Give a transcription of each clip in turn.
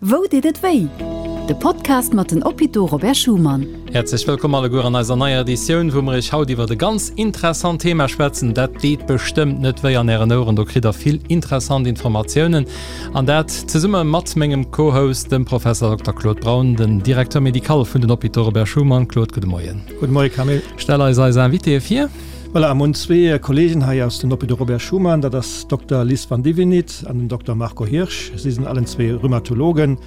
Wou deet et wéi? De Podcast mat den Hôpitaux Robert Schuman. Häerzlech wëllkomm alleguer an eiser neier Editioun, wou mer iech haut iwwert e ganz interessant Thema schwätzen. Dat deet bestëmmt net wéi an ären Oueren, do kritt der vill interessant Informatiounen. An dat zesumme mat mengem Co-Host, dem Professor Dokter Claude Braun, den Directeur médical vun den Hôpitaux Robert Schuman. Claude, gudde Moien. Gudde Moie Camille. Stell eis eis Invitéë vir. Voilà, mir hunn zwee Kollegen hei aus den Hôpitaux Robert Schuman, dat ass Dokter Liz Vandivinit an den Dokter Marco Hirsch. Si sinn allen zwee Rheumatologen.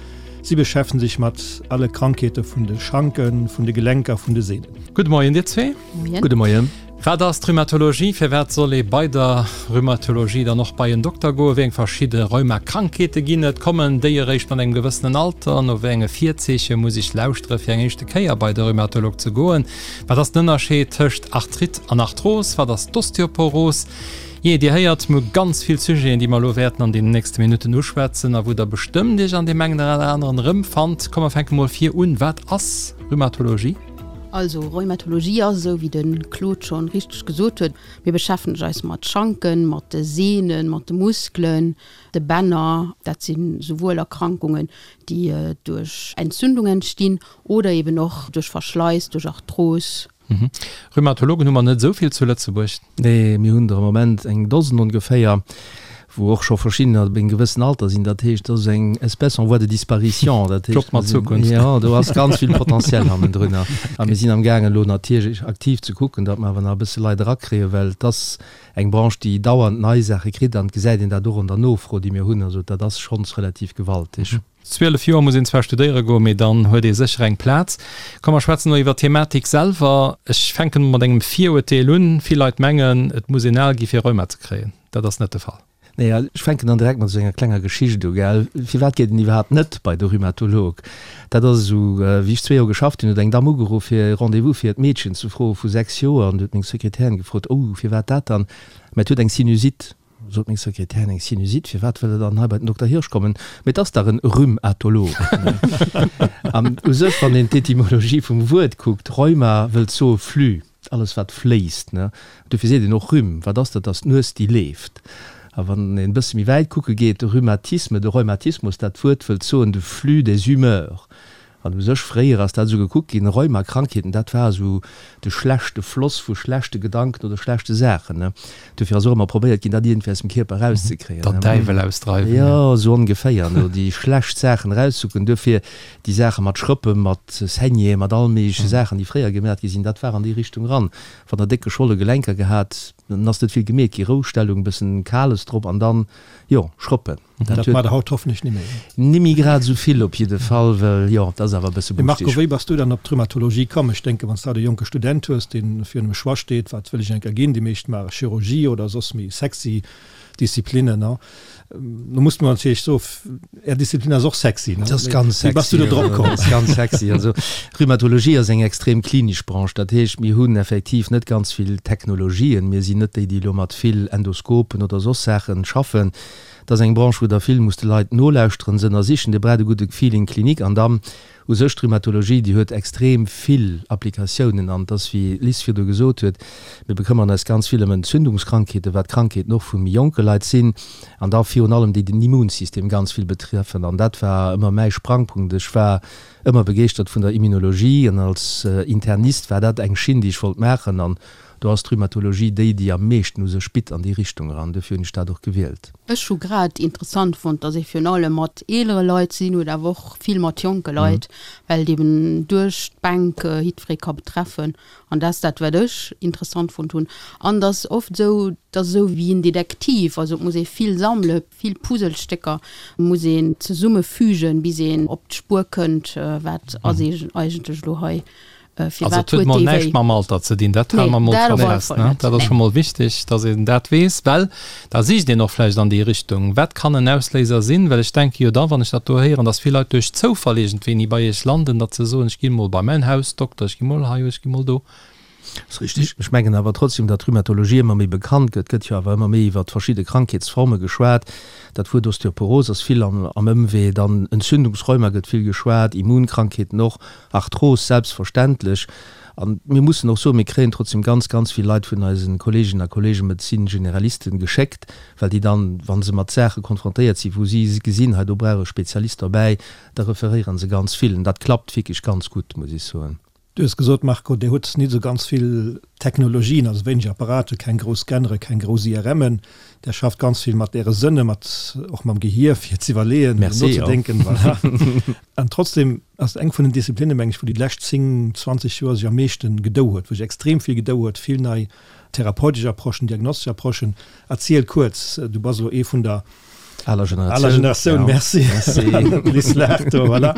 Si beschäftegen sech mat alle Krankheete vun de Schanken, vun de Gelenker, vun de Sehnen. Gudde Moien dir zwee. Moien. Gudde Moien. Wat ass d'Rheumatologie? Firwat soll ee bei der Rheumatologie dann och bei en Dokter goen? Wéi eng verschidde Rheumakrankheete ginn et? Kommen déi eréischt mat engem gewëssenen Alter? No wéi enge Virzeeche muss ech lauschtere fir eng éischte Kéier bei de Rheumatolog ze goen? Wat ass den Ënnerscheed tëscht Arthrite an Arthros? Wat ass d'Osteoporos? Jee, Dir héiert, mir hu ganz vill Sujeten, déi mer elo wäerten an deenen nächste Minutten uschwätzen a wou Der bestëmmt Iech an deem engen oder aneren erëmfannt. Komm, mer fänke mol vir un. Wat ass Rheumatologie? Also, Rheumatologie ass, esou wéi de Claude schonn richteg gesot huet, mir beschäftegen eis mat Schanken, mat de Sehnen, mat de Muskelen, de Bänner. Dat si souwuel Erkrankungen, déi duerch Entzündung entstinn Oder eben och duerch Verschleiss, duerch Arthros. Rheumatologen hu mer net esou vill zu Lëtzebuerg. Nee, mir hunn der am Moment eng Dosen ongeféier, wou och scho verschiddener op engem gewëssen Alter sinn. Dat heescht, dat ass eng Espèce en voie de disparition. Dat heescht, Job mat Zukunft. Jo, do ass ganz vill Potentiel hannendrunner. A mir sinn amgaangen elo natierlech aktiv ze kucken, datt mer awer nach e bësse Leit erakréien, well et ass eng Branche, déi dauernd nei Saache kritt an et gesäit een dat och an der Nofro, déi mir hunn. Also dat ass schonns relativ gewaltig. 12 Joer muss een zwar studéiere goen, mee dann huet ee sécher eng Plaz. Komm mer schwätzen elo iwwer d'Thematik selwer. Ech fänken mol mat engem Virurteel un. Vill Leit mengen, et muss een al gi fir Rheuma ze kréien. Dat ass net de Fall. Nee, ech fänken dann direkt mat esou enger klenger Geschicht u, gell. Firwat geet een iwwerhaapt net bei de Rhumatolog? Dat ass esou, wéi ech zwee Joer geschafft hunn, huet eng Damm ugeruff fir e Rendez-vous fir hiert Meedchen ze froe vu 6 Joer. An du huet meng Sekretärin gefrot, Oh, firwat dat dann? Mä et huet eng Sinusite. Sot meng Sekretärin, eng Sinusite, firwat wëll der dann hei bei den Dokter Hirsch kommen? Mee 't ass dach en Rhumatolog. An u sech, wann een d'Etymologie vum Wuert kuckt, Rheuma wëllt soe Flux, alles wat fléisst, ne? Dofir seet een och Rhume. Wat ass dat? Dat ass d'Nues déi leeft. A wann een e bësse méi wäit kucke geet, de Rhumatisme, de Rheumatismus, dat Wuert wëllt soen de flux des humeurs. An u sech fréier ass dat esou gekuckt ginn, Rheumakrankheeten, dat war esou de schlechte Floss vu schlechte Gedanken oder schlechte Saachen, ne. Dofir ass och ëmmer probéiert ginn, dat iergendwéi aus dem Kierper erauszekréien, ne. Der Däiwel ausdreiwen, jo. Jo, esou ongeféier, ne, déi schlecht Saachen erauszucken. Duerfir déi Saache mat Schrëppen, mat Saignéeën, mat all méigleche Saachen, déi fréier gemat gi sinn, dat war an déi Richtung eran. Wann der déck geschwolle Gelenker gehat, dann ass net vill gemeet gi, Roustellung, bëssen Kales drop an dann, jo, Schrëppen. Dat maacht der haut hoffentlech ni méi. Ni méi grad esou vill op jidde Fall, well jo, dat ass awer e bësse Mee Marco, wéi bass du dann op d'Rhumatologie komm? Ech denken, wann s de haut e jonke Student hues, dee virun dem Choix steet, wat wëll ech eng Kéier ginn, déi meescht maache Chirurgie oder soss méi sexy Disziplinnen, ne? Do muss mer natierlech soen, Är Disziplin ass och sexy, ne? Dat ass ganz Wéi bass du sexy, do drop komm? dat ass ganz sexy. Also Rhumatologie ass eng extrem klinesch Branche, dat heescht, mir hunn effektiv net ganz vill Technologien, mir sinn net déi, déi elo mat vill Endoskopen oder soss Saachen schaffen. Et ass eng Branche, wou Der vill musst de Leit nolauschteren, se ënnersichen. Dir braucht e gudde Feeling clinique. An dann u sech d'Rhumatologie, déi huet extrem vill Applikatiounen. An et ass, wéi d'Liz virdu gesot huet, mir bekëmmern eis ganz vill ëm Entzündungskrankheeten, wat Krankheeten och vu méi jonke Leit sinn, an da virun allem déi den Immunsystem ganz vill betreffen. An dat war ëmmer mäi Sprangpunkt. Ech war ëmmer begeeschtert vun der Immunologie an als Internist war dat eng Schinn, déi ech wollt maachen. An Do ass d'Rhumatologie déi, déi am meeschten u sech bitt an déi Richtung eran. Dofir hunn ech dat och gewielt. Ech hu grad interessant fonnt, dass ee virun allem mat eelere Leit ze dinn huet, awer och vill mat jonke Leit, well et eben duerch d'Bänk jiddweree ka betreffen. An dat ass dat, wat ech interessant fonnt hunn. An et ass oft esou, et ass esou wéi en Detektiv, also et muss ee vill sammelen, vill Puzzlestécker muss een zesummefügen, bis een op d'Spuer kënnt, wat ass eigentlech elo hei Also et huet mol näischt mam Alter ze dinn, dat hale mer mol scho fest. Dat ass scho mol wichteg, datt een dat weess, well da sicht een och vläicht an déi Richtung. Wat kann en Ausléiser sinn? Well ech denke jo da, wann ech dat do héieren, datt vill Leit duerch Zoufall iergendwéini bei Iech landen, datt se soen, ech gi mol bei mäin Hausdokter, ech gi mol hei, ech gi mol do. Ass richtig. Ech mengen awer trotzdem, datt d'Rhumatologie ëmmer méi bekannt gëtt. Et gëtt jo awer ëmmer méi iwwert verschidde Krankheetsforme geschwat. Dat Wuert Osteoporos ass vill am Ëmwee, dann Entzündungsrheuma gëtt vill geschwat, Immunkrankheeten och. Arthros selbstverständlech. An mir mussen och soen, mir kréien trotzdem ganz, ganz vill Leit vun eise Kolleeginnen a Kolleegen, Médecine-Généralisten, geschéckt, well déi dann, wa se mat Saache konfrontéiert sinn, wou si gesinn, hei do brauch e Spezialist derbäi, da referéiere se ganz vill. An dat klappt wierklech ganz gutt, muss ech soen. Du hues gesot, Marco, Dir hutt nit esou ganz vill Technologien, also wéineg Apparaten, keng grouss Scannere, keng grouss IRMen. Der schafft ganz vill mat Äre Sënne, mat och mam Gehier, fir z'iwwerleeën, nozedenken. Voilà. An trotzdem ass et eng vun den Disziplinnen, meng ech, wou déi lescht 10, 20 Joer sech am meeschten gedou huet, wou sech extrem vill gedou huet, vill nei therapeutesch Approchen, diagnostesch Approchen. Erziel kuerz, du bass elo ee vun der Aler Generatioun. Aler Generatioun, merci. Merci. Laacht do, voilà.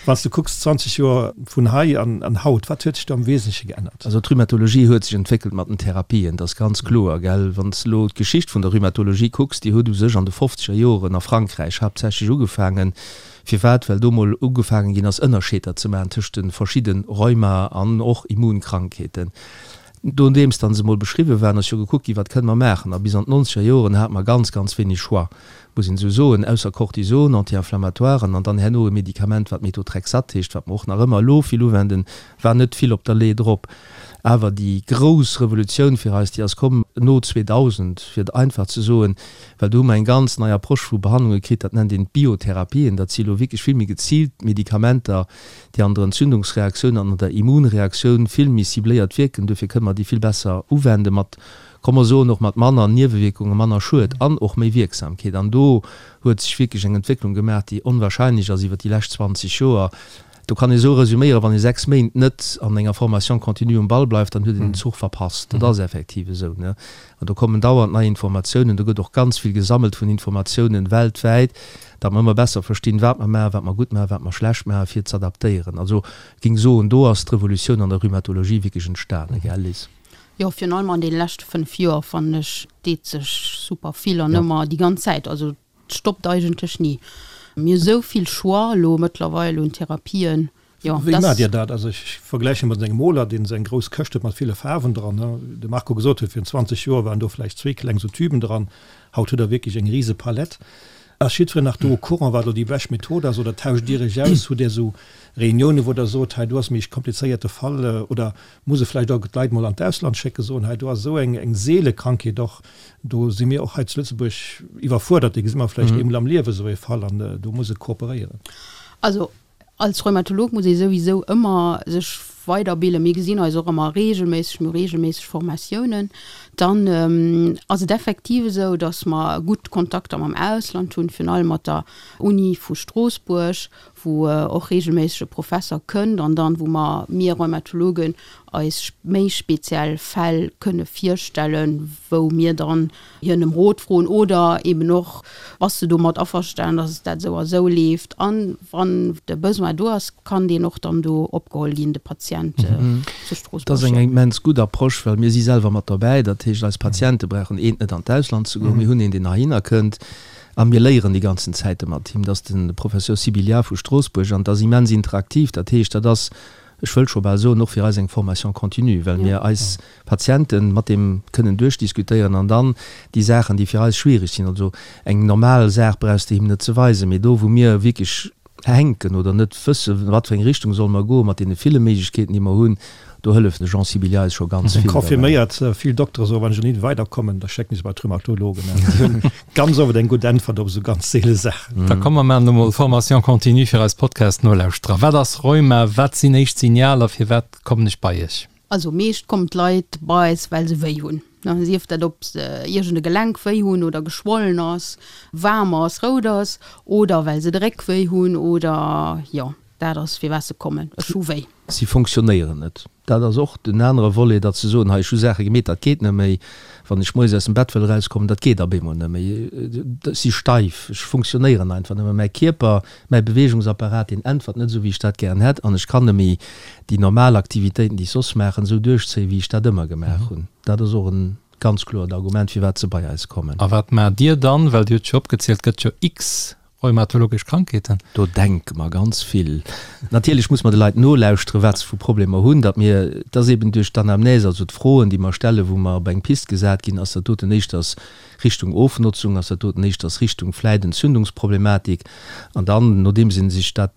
Wann s du kucks, 20 Joer vun hei an, an haut, wat huet sech do am Wesentleche geännert? Also d'Rhumatologie huet sech entwéckelt mat den Therapien, dat ass ganz kloer, gell. Wann s de elo d'Geschicht vun der Rhumatologie kucks, déi huet u sech an de fofzeger Joren a Frankräich haaptsächlech ugefaangen. Firwat? Well do mol ugefaangen ginn ass, Ënnerscheeder ze maachen tëscht de verschidde Rheuma an och Immunkrankheeten. Nodeems dann se mol beschriwwen waren, ass jo gekuckt ginn, wat kënne mer maachen. A bis an d'nonzeger Joren hate mer ganz, ganz wéineg Choix, muss een esou soen, ausser Cortison, Anti-inflammatoiren an dann herno e Medikament, wat Methotrexat heescht, wat mer och nach ëmmer elo vill uwenden, war net vill op der Lee drop. Awer déi grouss Revolutioun fir eis, déi ass komm no 2000, fir et einfach ze soen, well do hu mer eng ganz nei Approche vu Behandlunge kritt, dat nennt een d'Biotherapien. Dat si elo wierklech vill méi geziilt Medikamenter, déi an der Entzündungsreaktioun an an der Immunreaktioun vill méi cibléiert wierken. Duerfir kënne mer déi vill besser uwenden, mat, komm mer soen, och mat manner Niewewierkungen, manner Schued an och méi Wierksamkeet. An do huet sech wierklech eng Entwécklung gemaach, déi onwahrscheinlech ass iwwert déi lescht 20 Joer. Do kann ee sou resüméieren, Wann ee 6 Méint net an enger Formation continue um Ball bleift, dann huet een den Zuch verpasst. Dat ass effektiv esou. An do kommen dauernd nei Informatiounen. Do gëtt och ganz vill gesammelt vun Informatiounen weltwäit. Datt mer ëmmer besser verstinn, wat mer maachen, wat mer gutt maachen, wat mer schlecht maachen, fir z'adaptéieren. Also, ech géing soen, do ass d'Revolutioun an der Rhumatologie wierklech entstanen, gell Liz? Jo, virun allem an deene leschte 5 Joer, fannen ech, deet sech super vill an ëmmer déi ganz Zäit. Also, et stoppt eigentlech ni. Mir hu sou vill Choix elo mëttlerweil un Therapien. Jo, Wéi maacht Dir dat? Also ech vergläiche mat engem Moler, deen esou eng grouss Këscht huet mat ville Faarwen dran. De Marco gesot huet, virun 20 Joer waren do vläicht zwee kleng sou Tüben dran. Haut hutt Der wierklech eng rise Palett. Ass jiddwereen nach do au courant, wat elo déi bescht Method ass? Oder tauscht Dir Iech aus? Hutt Dir esou Reuniounen, wou Der sot, hei do ass méi e komplizéierte Fall? Oder muss e vläicht och d'Leit mol an d'Ausland schécken, soen, hei do ass esou eng eng seele Krankheet och, do si mir och hei zu Lëtzebuerg iwwerfuerdert, dee gesi mer vläicht eemol am Liewe esou ee Fall an do muss e kooperéieren. Also Als Rheumatolog muss ee souwisou ëmmer sech weiderbilden. Mir gesinn eis och ëmmer reegelméisseg, mir hu reegelméisseg Formatiounen. Dann ass et effektiv esou, datt mer gutt Kontakter mam Ausland hunn, virun allem mat der Uni vu Stroossbuerg, wou och reegelméisseg e Professer kënnt an dann, wou mer, mir Rheumatologen, eis méi speziell Fäll kënne virstellen, wou mir dann hien ëm Rot froen oder eben och, Bass de domat averstanen, dass dat esou a esou leeft? An wann de Besoin do ass, kann deen och dann do opgeholl ginn, de Patient zu Stroossbuerg. Dat ass eng immens gutt Approche, well mir si selwer mat dobäi. Dat heescht, eis Patiente brauchen eent net an d'Ausland ze goen. Mir hunn een, deen heihinner kënnt a mir léieren déi ganzen Zäite mat him. Dat ass de Professeur Sibilia vu Stroossbuerg an dat ass immens interaktiv. Dat heescht, dat ass, ech wëll scho bal soen, och fir eis eng Formation continue, well mir eis Patienten mat deem kënnen duerchdiskutéieren an dann déi Saachen, déi fir eis schwierig sinn, also eng normal Saach brauchs de him net ze weisen, mee do wou mir wierklech hänken oder net wëssen, wat fir eng Richtung solle mer goen mat deene ville Méiglechkeeten, déi mer hunn, do hëlleft de Jean Sibilia eis scho ganz vill derbäi. Confirméiert, vill Doktere soen, wann ech net weiderkommen, da schécken ech se bei d'Rhumatologen. Déi hunn ganz oft eng gutt Äntwert op esou ganz seele Saachen. Da komm mer maachen elo mol Formation continue fir eis Podcast-Nolauschterer. Wat ass Rheuma? Wat sinn éischt Signaler? Firwat kommen ech bei iech? Also meescht kommen d'Leit bei eis well se wéi hunn, sief dat ob se iergend e Gelenk wéi hunn oder geschwollen ass, waarm ass, rout ass oder well se de Réck wéi hunn oder jo dat ass firwat se kommen, ech hu wéi. Si fonctionnéieren net. Dat ass och den anere Volet, datt se soen, hei ech hu Saache gemeet, dat geet net méi. Wann ech moies aus dem Bett wëll erauskommen, dat geet ab eemol net méi. Ech si steif, ech fonctionnéieren einfach net méi. Mäi Kierper, mäi Beweegungsapparat, deen äntwert net esou, wéi ech dat gären hätt an ech kann net méi déi normal Aktivitéiten, déi ech soss maachen, esou duerchzéien, wéi ech dat ëmmer gemaach hunn. Dat ass och e ganz kloert Argument, firwat se bei eis kommen. A wat maacht Dir dann? Well Dir hutt jo opgezielt, et gëtt jo x Rheumatologesch Krankheeten. Do denke mer ganz vill. Natierlech muss mer de Leit nolauschteren, wat se vu Problemer hunn, datt mir, et ass eben duerch d'Anamnèse, also d'Froen, déi mer stellen, wou mer op eng Pist gesat ginn, ass dat doten éischters Richtung Ofnotzung, ass dat doten éischters Richtung vläit Entzündungsproblematik. An dann, nodeems ee sech dat.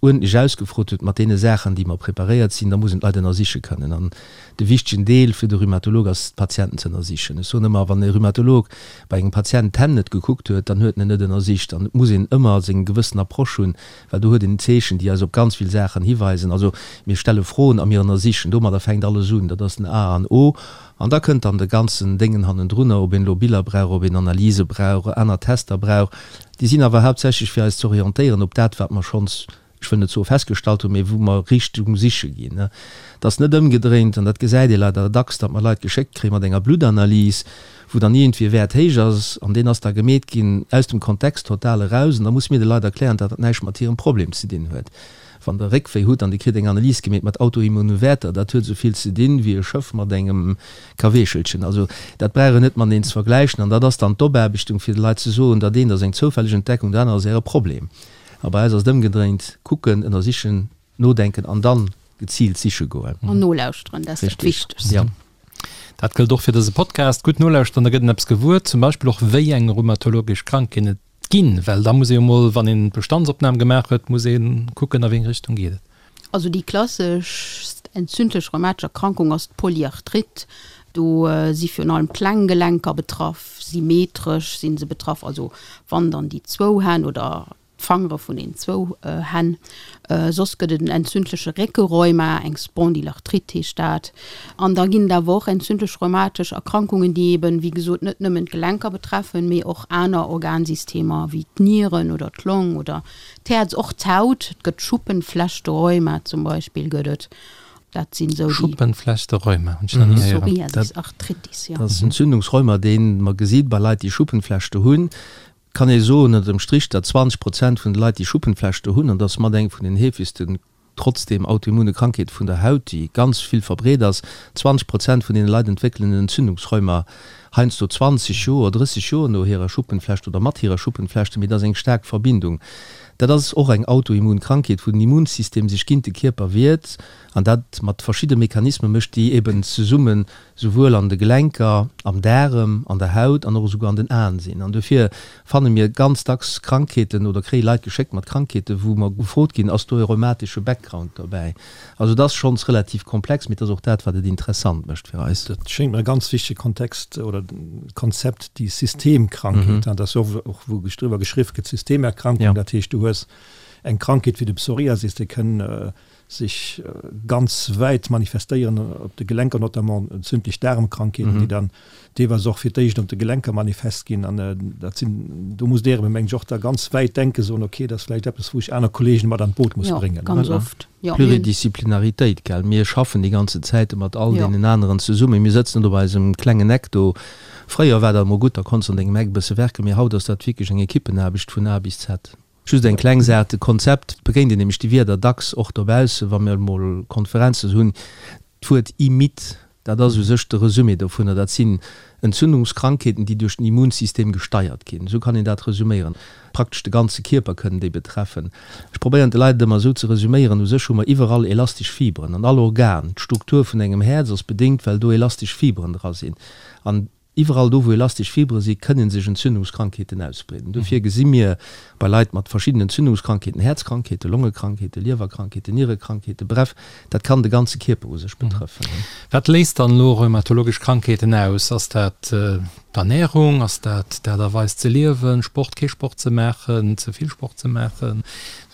uerdentlech ausgefrot huet mat deene Saachen, déi mer preparéiert sinn, da muss een d'Leit ënnersiche kënnen. An de wichtegen Deel fir de Rhumatolog ass, d'Patienten ze ënnersichen. Ech soen ëmmer, wann e Rhumatolog bei engem Patient d'Hänn net gekuckt huet, dann huet en en net ënnersicht. An et muss een ëmmer seng gewëssen Approche hunn, well do huet een Zeechen, déi eis op ganz vill Saachen hiweisen. Also mir stelle Froen a mir ënnersichen. Domadder fänkt alles un. Dat ass den A an O. An da kënnt dann de ganzen Déngen hannendrunner, ob een elo Biller brauch, ob een Analyse brauch, aner Tester brauch. Déi sinn awer haaptsächlech fir eis ze orientéieren op dat, wat mer schonns, ech wëll net soe festgestallt hunn, mee wou mer Richtung siche ginn. Et ass net ëmgedréint, an dat gesäit ee leider dacks, datt mer Leit geschéckt kréie mat enger Bluttanalyse, wou dann iergendwéi e Wäert héich ass an deen ass da gemeet ginn aus dem Kontext total eraus. An da musse mir de Leit erklären, datt dat näischt mat hirem Problem ze dinn huet. Wann Der Réckwéi hutt an Dir kritt eng Analys gemeet mat autoimmune Wäerter, dat huet esou vill ze dinn wéi e Schëff mat engem Kaweechelchen. Also dat brauch een net mateneen ze vergläichen. An dat ass dann d'Opaarbechtung fir de Leit ze soen, dat eent ass eng zoufälleg Entdeckung, dat anert ass Äre Problem. A bei eis ass et ëmgedréint, kucken, ënnersichen, nodenken an dann geziilt siche goen. An nolauschteren, dat ass dat Wichtegst. Jo. Dat gëllt och fir dëse Podcast. Gutt nolauschteren, da gëtt een eppes gewuer, zum Beispill och wéi eng rheumatologesch Krankheet et Ginn, well da muss ee jo mol, wann een d'Bestandsopnam gemaach huet, muss ee kucken, a wéi eng Richtung geet et. Also déi klasseschst entzündlech rheumatesch Erkrankung ass d'Polyarthrite. Do si virun allem kleng Gelenker betraff, symmetresch si se betraff, also wann dann déi zwou Hänn oder d'Fangere vun den zwou Hänn. Soss gëtt et en entzündleche Réckerheuma, eng Spondylarthrite heescht dat. An da ginn et awer och entzündlech rheumatesch Erkrankungen, déi eben, wéi gesot, net nëmmen d'Gelenker betreffen, mee och aner Organsystemer wéi d'Nieren oder d'Long oder d'Häerz, och d'Haut. Et gëtt Schuppenflechterheuma zum Beispill gëtt et. Dat sinn esou déi. Schuppenflechterheuma hunn ech nach ni héieren. Psoriasis Arthritis, jo. Dat ass Entzündungsrheuma, dee mer gesi bei Leit, déi Schuppenflechte hunn. Kann ee soen ënner dem Strich, datt 20 Prozent vun de Leit, déi Schuppenflechte hunn, an dat ass mat eng vun den heefegsten trotzdem autoimmune Krankheete vun der Haut, déi ganz vill verbreet ass, 20 Prozent vun deene Leit entwéckelen en Entzündungsrheuma, heiansdo 20 Joer, 30 Joer no hirer Schuppenflecht oder mat hirer Schuppenflechte, mee dat ass eng staark Verbindung. Dat ass och eng autoimmun Krankheet, wou den Immunsystem sech géint de Kierper wiert an dat mat verschidde Mechanisme mécht, déi eben zesummen souwuel an de Gelenker, am Daarem, an der Haut an och esouguer an den Aen sinn. An dofir fanne mir ganz dacks Krankheeten oder kréie Leit geschéckt mat Krankheeten, wou mer gefrot ginn, Ass do e rheumatesche Background dobäi? Also et ass schonns relativ komplex, mee et ass och dat, wat et interessant mécht fir eis. Dat schéngt mer e ganz wichtege Kontext oder Konzept, déi Systemkrankheet. Dat ass jo och, wou driwwer geschriww gëtt, Systemerkrankung. Dat heescht, du hues eng Krankheet wéi de Psoriasis, dee kënn sech ganz wäit manifestéieren, op de Gelenker notamment, entzündlech Daarmkrankheeten, déi dann deelweis och fir d'éischt op de Gelenker manifest ginn. An dat sinn, do muss Der eben, mengen ech, och da ganz wäit denken, soen, okay, dat ass vläicht eppes, wou ech aner Kollegen mat an d'Boot muss bréngen. Jo, ganz oft, jo. Pluridisciplinaritéit, gell. Mir schaffen déi ganze Zäite mat all deenen aneren zesummen. Mir sëtzen net op eisem klengen Eck do. Fréier war dat emol gutt, da konns de an dengem Eck e bësse werken, mee haut ass dat wierklech eng Ekippenaarbecht vun A bis Z. Just eng kleng Saach, de Konzept begéint een nämlech déi Wierder dacks och dobaussen, wa mir emol Konferenzen hunn. D'Wuert IMID, dat ass u sech de Resumé dovunner. Dat sinn Entzündungskrankheeten, déi duerch den Immunsystem gesteiert ginn. Esou kann een dat resuméieren. Praktesch de ganze Kierper kënnen déi betreffen. Ech probéieren de Leit et ëmmer esou ze resuméieren, U sech hu mer iwwerall elastesch Fiberen an all Organ. D'Struktur vun engem Häerz ass bedéngt, well do elastesch Fiberen dra sinn. An Iwwerall do, wou elastesch Fibre si, kënne sech Entzündungskrankheeten ausbreeden. Dofir gesi mir bei Leit mat verschiddenen Entzündungskrankheeten, Häerzkrankheeten, Longekrankheeten, Liewerkrankheeten, Nierekrankheeten, bref, dat kann de ganze Kierper u sech betrëffen. Wat léist dann elo rheumatologesch Krankheeten aus? Ass dat d'Ernärung? Ass dat d'Aart a Weis ze liewen, Sport, kee Sport ze maachen, ze vill Sport ze maachen?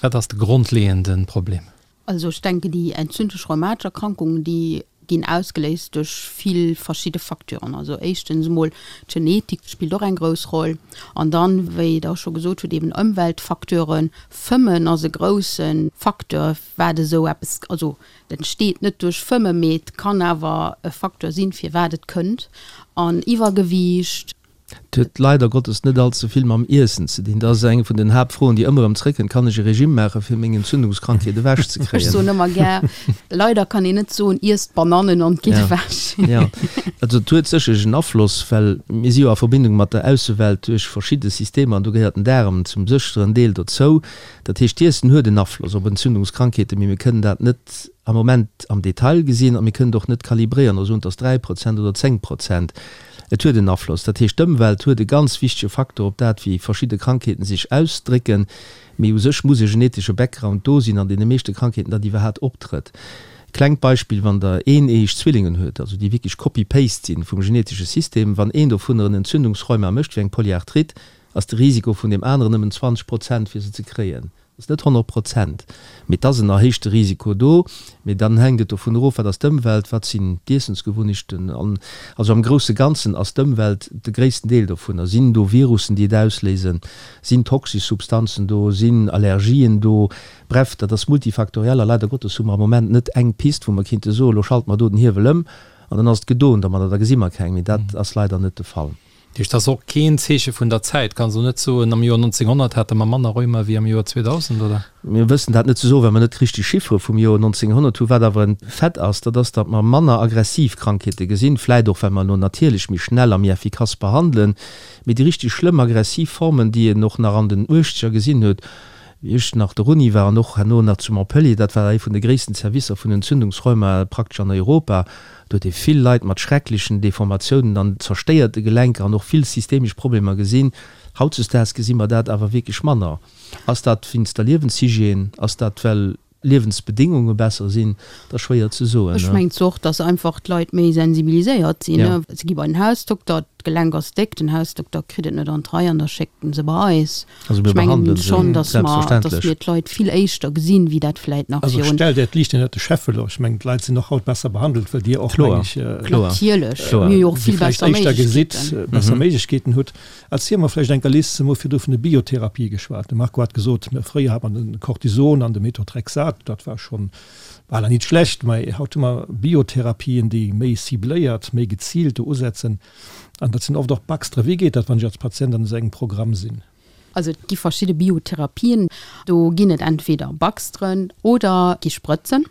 Wat ass de grondleeënde Problem? Also ech denken déi entzündlech rheumatesch Erkrankungen, déi ginn ausgeléist duerch vill verschidde Facteuren. Also éischtens emol d'Genetik spillt och eng grouss Roll an dann, wéi Der scho gesot hutt, eben Ëmweltfacteuren. Fëmmen ass e grousse Facteur, wat esou eppes, also et entsteet net duerch Fëmme, mee et kann awer e Facteur sinn, firwat et kënnt. An Iwwergewiicht. Et huet leider Gottes net all ze vill mam Iessen ze dinn. Dat ass eng vun den Haaptfroen, déi ëmmer erëm zréckkënnt, Kann ech e Regime maachen, fir meng Entzündungskrankheet ewech ze kréien? Ech soen ëmmer gär, leider kann een net soen, iesst Banannen an et geet ewech. Jo, also et huet sécherlech en Afloss, well mir si jo a Verbindung mat der Aussewelt duerch verschidde Systemer an do gehéiert den Daarem zum sécheren Deel dozou. Dat heescht, d'Iessen huet en Afloss op Entzündungskrankheeten, mee mir kënnen dat net am Moment am Detail gesinn a mir kënnen et och net kalibréieren a soen, et ass 3 Prozent oder 10 Prozent. Et huet en Afloss. Dat heescht, d'Ëmwelt huet e ganz wichtege Faktor op dat, wéi verschidde Krankheeten sech ausdrécken. Mee u sech muss e genetesche Background do sinn an deene meeschte Krankheeten, datt iwwerhaat optrëtt. Klengt Beispill, Wann Der eeneeëg Zwillingen huet, also déi wierklech Copy-Paste sinn vum genetesche System, wann een dovunner en Entzündungsrheuma mécht, wéi eng Polyarthrite, ass de Risiko vun deem aneren nëmmen 20 Prozent fir se ze kréien. Ass net 100 Prozent, mee et ass en erhéichte Risiko do. Mee dann hänkt et dovun erof, wat ass d'Ëmwelt, wat sinn d'Iessensgewunnechten. An also am grousse Ganzen ass d'Ëmwelt de gréissten Deel dovunner. Sinn do Virussen, déi et ausléisen? Sinn toxesch Substanzen do? Sinn Allergien do? Bref, dat ass multifaktoriell a leider Gottes hu mer am Moment net eng Pist, wou mer kinnte soen, elo schalte mer do den Hiewel ëm an dann ass et gedoen domadder, da gesi mer keng. Mee dat ass leider net de Fall. Dat heescht, dat ass och keen Zeeche vun der Zäit. Kanns elo net soen, am Joer 1900 hate mer manner Rheuma wéi am Joer 2000, oder? Mir wëssen dat net ze soen, well mer net richteg Chiffere vum Joer 1900 hunn. Wat awer en Fait ass, dat ass, datt mer manner aggressiv Krankheete gesinn, vläit och well mer elo natierlech méi schnell a méi effikass behandelen. Mee déi richteg schlëmm aggressiv Formen, déi een och nach an den Uechtzeger gesinn huet, wéi ech nach der Uni war an och herno nach zu Montpellier, dat war ee vun de gréissten Servicer vun Entzündungsrheuma praktesch an Europa, Do huet ee vill Leit mat schrecklechen Deformatiounen an zerstéierte Gelenker an och vill systemesch Problemer gesinn. Hautzesdaags gesi mer dat awer wierklech manner. Ass dat wéinst der Liewenshygiène? Ass dat well Liewensbedéngunge besser sinn? Dat ass schwéier ze soen. Ech mengen zwar och, dass einfach d'Leit méi sensibiliséiert sinn. Se gi bei den Hausdokter, d'Gelenk ass déck, den Hausdokter kritt et net an d'Rei an da schéckt en se bei eis. Also mir Ech mengen behandelen se, schonn, dass mer, dass selbstverständlech. mir d'Leit vill éischter gesinn, wéi dat vläit nach Also virun. stellt Äert Liicht ënnert de Scheffel. Ech mengen, d'Leit sinn och haut besser behandelt, well Dir och, Kloer, meng ech, kloer, Natierlech, kloer. mir hu jo och si vill vläicht besser éischter gesitt, Méiglechkeeten. besser Méiglechkeeten hutt. Erziel mer vläicht enker, Liz, mer hu virdru vun de Biotherapie geschwat. De Marco hat gesot, fréier hat man de Cortison an de Methotrexat, dat war schonn bal nit schlecht, mä haut hu mer Biotherapien, déi méi cibléiert, méi geziilt do usetzen. An dat sinn oft och Baxtere. Wéi geet dat, wann ech als Patient an esou engem Programm sinn? Also et gi verschidde Biotherapien, do ginn et entweder Baxteren oder gi Sprëtzen.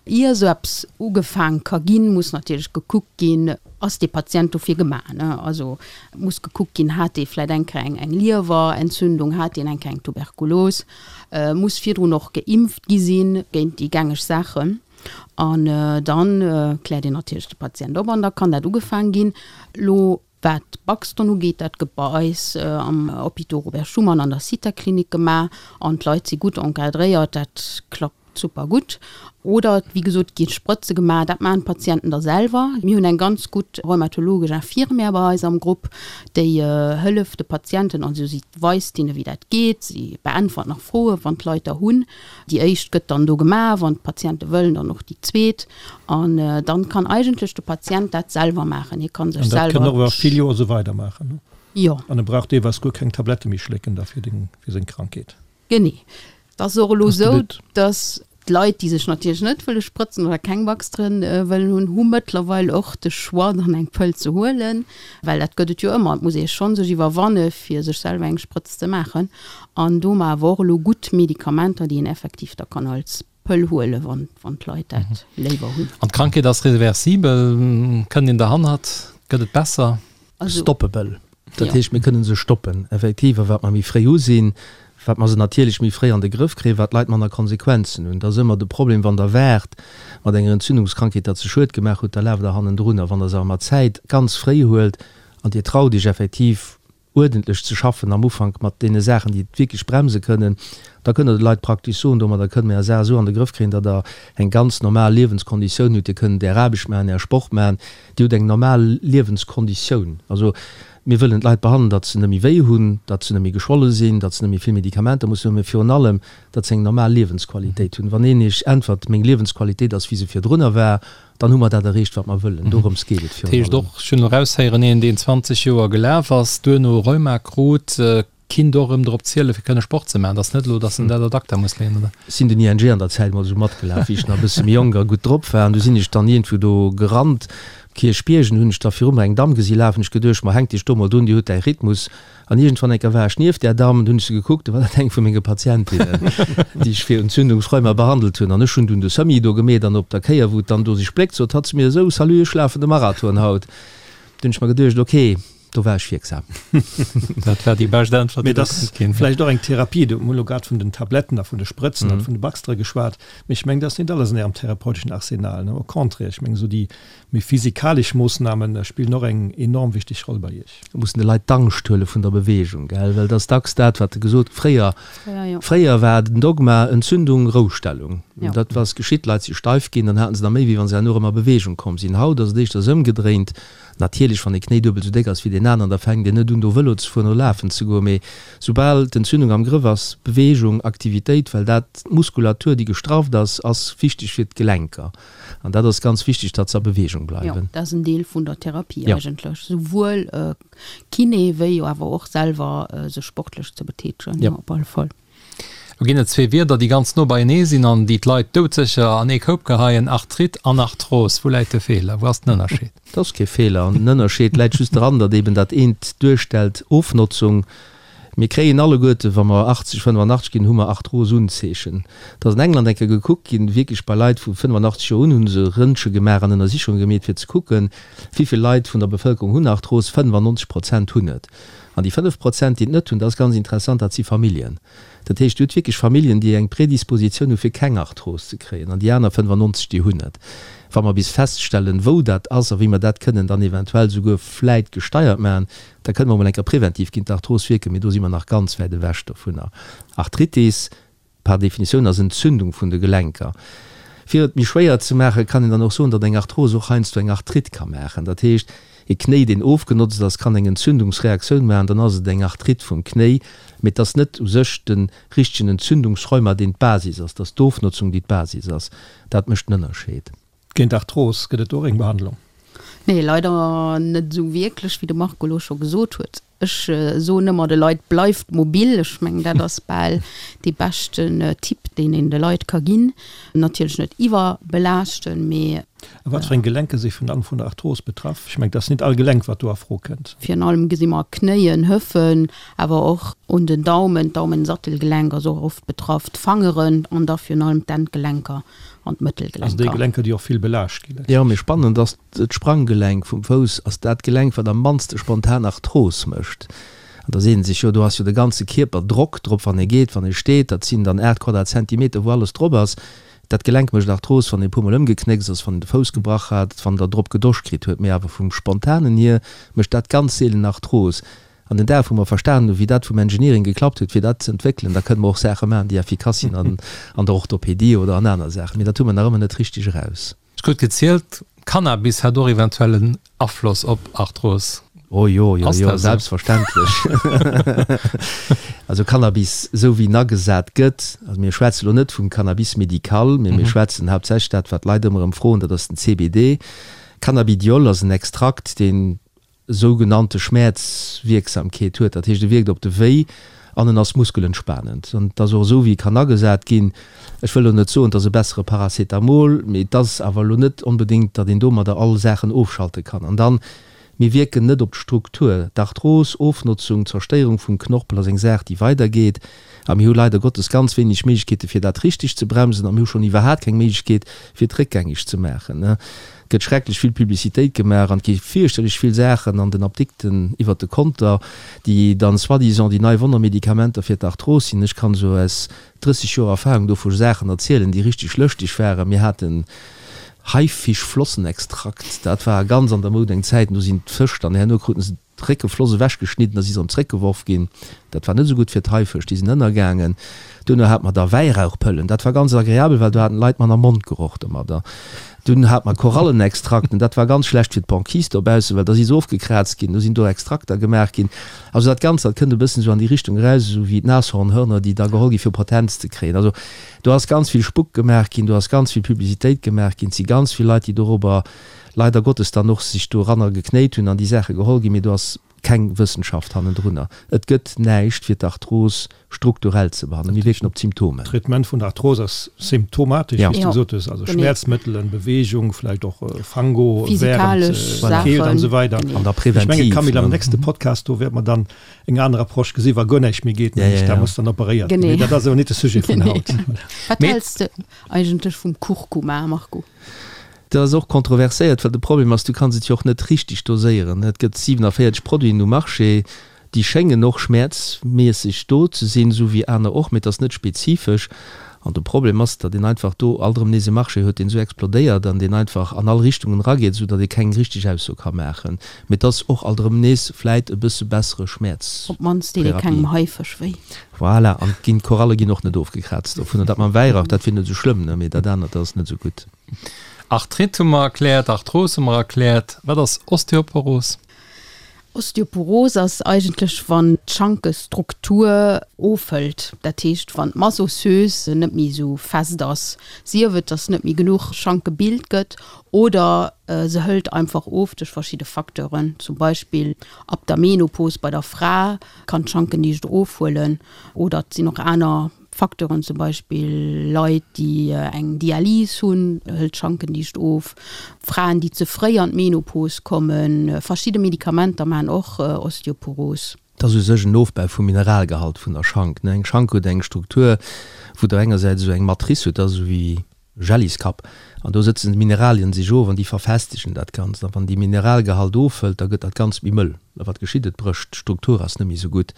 Ier esou eppes ugefaang ka ginn, muss natierlech gekuckt ginn, ass dee Patient dofir gemaach, ne? Also muss gekuckt ginn, hat dee vläicht eng Kéier eng eng Liewerentzündung, hat deen eng Kéier eng Tuberkulos, muss virdrun och geimpft gi sinn géint déi gängeg Saachen. An dann kläert een natierlech de Patient op an da kann dat ugefaang ginn. Lo Wat d'Buxton ugeet, dat gëtt bei eis am Hôpital Robert Schuman an der Zithaklinik gemaach an d'Leit si gutt encadréiert, dat klappt super gutt. Oder wéi gesot, et gi Sprëtze gemaach, dat maachen d'Patienten da selwer. Mir hunn eng ganz gutt rheumatologesch Infirmière bei eis am Grupp, déi hëlleft de Patienten, also si weist hinne wéi dat geet, si beäntwert nach Froen, wann d'Leit der hunn. Déi éischt gëtt dann do gemaach, wann d'Patiente wëllen, dann och déi zweet. An dann kann eigentlech de Patient dat selwer maachen. Hie kann sech An dat selwer. kann och iwwer vill Joer esou weidermaachen, ne? Jo. An e brauch deelweis guer keng Tablette méi schlécken da fir deng, fir seng Krankheet. Genee. Et ass och elo Ass de esou, But. dass d'Leit, déi sech natierlech net wëlle sprëtzen oder keng Baxteren wëllen hunn, hu mëttlerweil och de Choix, dann eng Pëll ze huelen. Well dat gëtt et jo ëmmer. Et muss ee schonn sech iwwerwanne fir sech selwer eng Sprëtz ze maachen. An do hu mer awer och elo gutt Medikamenter, déi een effektiv da kann als Pëll huelen, wann, wann d'Leit dat léiwer hunn. An d'Krankheet ass reversibel? Kënnt een derhannert? Gëtt et besser? Also. Stoppable. Dat Jo. heescht, mir kënnen se stoppen, effektiv. A wat mer méi fréi u sinn, wat mer se natierlech méi fréi an de Grëff kréien, wat d'Leit manner Konsequenzen hunn. Dat ass ëmmer de Problem, wann Der waart mat enger Entzündungskrankheet, dat se Schued gemaach hutt, da laaft Der hannendrun. A wann Der se awer mat Zäit ganz fréi huelt an Dir traut Iech effektiv, uerdentlech ze schaffen am Ufank mat deene Saachen, déi et wierklech bremse kënnen, da kënnt Der de Leit praktesch soen, domadder kënne mir Är Saach esou an de Grëff kréien, datt Der eng ganz normal Liewenskonditioun hutt, Dir kënnt Är Aarbecht maachen, Är Sport maachen, Dir hutt eng normal Liewenskonditioun. Also mir wëllen d'Leit behandelen, datt se net méi wéi hunn, datt se net méi geschwolle sinn, datt se net méi vill Medikamenter mussen hunn, mä virun allem, datt se eng normal Liewensqualitéit hunn. Wann een Iech äntwert, meng Liewensqualitéit ass wéi se virdrunner war, Dann hu mer dat erreecht, wat mer wëllen. Dorëms geet et Dat virun heescht allem. och, ech hunn elo eraushéieren, een, deen 20 Joer gelaf ass, duerno Rheuma krut, kinnt och erëm drop zielen, fir kënne Sport ze maachen. Dat ass net elo, datt en dat ad acta muss leeën, oder? Ech sinn den ING an der Zäit mol esou matgelaf, wéi ech nach e bësse méi jonk a gutt drop war. An du sinn ech dann iergendwou do gerannt, um Kierchbierg, an du hunn ech da viru mer eng Damm gesi lafen. Ech geduecht, ma hänk dech do mol drun, déi huet däi Rhythmus. An iergendwann eng Kéier war ech nieft där Damm, du hunn ech se gekuckt, du war dat eng vu menge Patientinnen, déi ech fir Entzündungsrheuma behandelt hunn. An ech hunn dunn de Semi do gemeet an op der Kéier, wou et dann do sech spléckt, sot hatt zu mir esou, Salut, ech lafen de Marathon haut. Du hunn ech mer geduecht, ok. Do war ech wierksam. Dat war déi bescht Äntwert, déi do konnt ginn. Vläicht och eng Therapie. Du hunn elo grad vun den Tabletten a vun de Sprëtzen an vun de Baxtere geschwat. Mee ech mengen, dat ass net alles an Ärem therapeuteschen Arsenal, ne? Au contraire, ech mengen, esou déi méi physikalesch Moossname spillen och eng enorm wichteg Roll bei Iech. Mir mussen de Leit d'Angscht huele vun der Beweegung, gell, well et ass dacks dat, wat gesot fréier, fréier war den Dogma Entzündung, Roustellung. Dat ass geschitt, d'Leit si steif ginn, dann haten se der méi, wéi wa se herno erëm a Beweegung komm sinn. Haut ass et éischters ëmgedréint. Natierlech, wann ee Knéi duebel esou déck ass wéi deen aneren, da fänkt een net un do Vëlo ze fueren oder lafen ze goen. Mee soubal d'Entzündung am Grëff ass, Beweegung, Aktivitéit, well dat, d'Muskulatur déi gestrafft ass, ass wichteg fir d'Gelenker. An dat ass ganz wichteg, datt se a Beweegung bleiwen. Jo, dat ass en Deel vun der Therapie eigentlech, souwuel Kiné wéi awer och selwer sech sportlech ze betätegen, op alle Fall. Lo ginn et zwee Wierder, déi ganz no beienee sinn an déi d'Leit doudsécher an ee Koup geheien, Arthrite an Arthros. Wou läit de Feeler? Wou ass den Ënnerscheed? Et ass kee Feeler. An den Ënnerscheed läit just dran, datt eben dat eent duerstellt Ofnotzung. Mir kréien alleguerte, wa mer 80, 85 ginn, hu mer Arthrosunzeechen. Et ass an England eng Kéier gekuckt ginn, wierklech bei Leit vu 85 Joer un hu se Rëntge gemaach an Ënnersichunge gemeet, fir ze kucken, wéi vill Leit vun der Bevëlkerung hunn Arthros. 95 Prozent hunn et. An déi 5 Prozent, déi et net hunn, dat ass ganz interessant, dat si Familljen. Dat heescht, Dir hutt wierklech Familljen, déi eng Predispositioun hu fir keng Arthros ze kréien, an déi aner 95, déi hunn et. Wa mer bis feststellen, wou dat ass a wéi mer dat kënnen dann eventuell souguer vläit gesteiert maachen, da kënne mer emol eng Kéier preventiv géint d'Arthros wierken, mee do si mer nach ganz wäit ewech dovunner. Arthritis. Par Definitioun ass Entzündung vun de Gelenker. Fir et méi schwéier ze maachen, kann een dann och soen, datt eng Arthrose och heiansdo eng Arthrite ka maachen. Dat heescht, e Knéi, deen ofgenotzt ass, kann eng Entzündungsreaktioun maachen, dann ass et eng Arthrite vum Knéi, mee et ass net u sech de richtegen Entzündungsrheuma, deen d'Basis ass, et ass d'Ofnotzung, déi d'Basis ass. Dat mécht den Ënnerscheed. Géint Arthros gëtt et och eng Behandlung? Nee, leider net esou wierklech, wéi de Marco elo scho gesot huet. Ech soen ëmmer de Leit, bleift mobil. Ech mengen, dat ass bal dee beschten Tipp, deen een de Leit ka ginn. Natierlech net iwwerbelaaschten, mee. A wat fir eng Gelenke si virun allem vun der Arthros betraff? Ech mengen, et ass net all Gelenk, wat do a Fro kënnt. Virun allem gesi mer Knéien, Hëffen, awer och un den Daumen, d'Daumensattelgelenk ass och oft betraff, d'Fangeren an da virun allem d'Endgelenker an d'Mëttelgelenker. Also déi Gelenker, déi och vill belaascht ginn. Jo, mee spannend ass, D'Spranggelenk vum Fouss ass dat Gelenk, wat am mannste spontan Arthros mécht. An da seet ee sech, jo do ass jo de ganze Kierper Drock drop, wann ee geet, wann ee steet. Dat sinn dann 8 Quadratzentimeter, wou alles drop ass. Dat Gelenk mécht Arthros, wann ee e puermol ëmgeknéckst ass, wann een de Fouss gebrach hat, wann der drop gedoscht kritt huet. Mee awer vum Spontanen hier mécht dat ganz seelen Arthros. An den Dag, wou mer verstanen hunn, wéi dat vum Engineering geklappt huet, fir dat ze entwéckelen, da kënne mer och Saache maachen, déi effikass sinn an der Orthopedie oder an aner Saachen. Mee dat hu mer nach ëmmer net richteg eraus. Ech krut gezielt, Cannabis hätt och eventuell en Afloss op Arthros. Oh jo, jo, jo, selbstverständlech. Also Cannabis, esou wéi en agesat gëtt, also mir schwätze lo net vum Cannabis médical, mee mir schwätzen haaptsächlech dat, wat d'Leit ëmmer erëm froen, dat ass den CBD. Cannabidiol ass en Extrakt, deen sougenannte Schmäerzwierksamkeet huet, dat heescht e wierkt op de Wéi an en ass muskelentspanend. An et ass och esou wéi e kann agesat ginn, ech wëll elo net soen, et ass e bessere Paracetamol, mee et ass awer elo net onbedéngt, datt een domadder all Saachen ofschalte kann. An dann, mir wierken net op d'Struktur. D'Arthros, Ofnotzung, Zerstéierung vum Knorpel ass eng Saach déi weidergeet a mir hu leider Gottes ganz wéineg Méiglechkeete fir dat richteg ze bremsen a mir hu schonn iwwerhaat keng Méiglechkeet fir et réckgängeg ze maachen. Et gëtt schrecklech vill Publicitéit gemaach an et gi fierchterlech vill Saachen an den Apdikten iwwert de Konter, déi dann soi-disant déi nei Wonnermedikamenter fir d'Arthros sinn. Ech kann esou aus 30 Joer Erfahrung do vu Saachen erzielen, déi richteg lëschteg waren. Mir haten Haifischflossenextrakt, dat war ganz an der Moud eng Zäit, an do sinn d'Fësch dann herno kruten se d'Réckefloss ewechgeschnidden a si se erëm zréckgeworf ginn. Dat war net esou gutt fir d'Haifësch, déi sinn ënnergaangen. Duerno hate mer da Wäirauchpëllen, dat war ganz agreabel, well do haten d'Leit manner Mondgeroch domadder. Dunn hate mer Korallenextrakten, dat war ganz schlecht fir d'Banquise dobaussen, well da si se ofgekraazt ginn, do sinn do Extrakter gemaach ginn. Also dat Ganzt, dat kënnt e bëssen esou an déi Richtung eraus, esou wéi d'Nashornhörner, déi da geholl gi fir Potenz ze kréien. Also do ass ganz vill Spuck gemaach ginn, do ass ganz vill Publicitéit gemaach ginn, et si ganz vill Leit, déi dorobber leider Gottes dann och sech doranner geknéit hunn an déi Saache geholl ginn, mee do ass keng Wëssenschaft hannendrunner. Et gëtt näischt fir d'Arthros strukturell ze behandelen. Mir wierken op d'Symptomen. D'Traitement vun der Arthros ass symptomatesch, wéi s du gesot hues, also Schmäerzmëttelen, Beweegung, vläicht och Fango wärend Keelt an esou weider. An da präventiv. Ech mengen, Camille, am nächste Podcast do wäerte mer dann eng aner Approche gesinn, wa guer näischt méi geet, nämlech da muss dann operéiert ginn. Mee dat ass awer net de Sujet vun haut. Wat häls de eigentlech vum Kurkuma, Marco? Dat ass och kontroverséiert, well de Problem ass, du kanns et jo och net richteg doséieren. Et gëtt 47 Produiten um Marché, déi schéngen och schmäerzmässeg do ze sinn, esou wéi aner och, mee et ass net spezifesch. An de Problem ass, datt een einfach do alt erëm nees e Marché huet, deen esou explodéiert an deen einfach an all Richtungen erageet, esou datt ee keng richteg Ausso ka maachen. Mee et ass och alt erëm nees vläit e bësse bessere Schmäerztherapie. Op d'mannst deet ee kengem Haifësch wéi. Voilà, an ginn, d'Koralle ginn och net ofgekraazt dovunner. Dat mam Wäirauch, dat wier net esou schlëmm, ne, mee dat anert, dat ass net esou gutt. Arthrite hu mer erkläert, Arthros hu mer erkläert. Wat ass Osteoporos? Osteoporos ass eigentlech wann d'Schankestruktur ofhëlt, dat heescht wann d'Masse osseuse net méi esou fest ass, sief et datt net méi genuch Schank gebilt gëtt oder se hëlt einfach of duerch verschidde Facteuren, zum Beispill ab der Menopos bei der Fra kann d'Schankendicht ofhuelen oder et sinn och aner Facteuren, zum Beispill Leit, déi eng Dialys hunn, hëlt d'Schankendicht of, Fraen, déi ze fréi an d'Menopos kommen, verschidde Medikamenter maachen och Osteoporos. Et ass u sech en Ofbau vum Mineralgehalt vun der Schank. Eng Schank huet eng Struktur, wou der engersäits esou eng Matrice hutt, dat ass esou wéi Jelliskapp, an do sëtzen d'Mineralien sech of an déi verfestegen dat Ganzt. A wann dee Mineralgehalt ofhëlt, da gëtt dat Ganzt méi mëll. A wat geschitt? Et brécht, d'Struktur ass net méi esou gutt.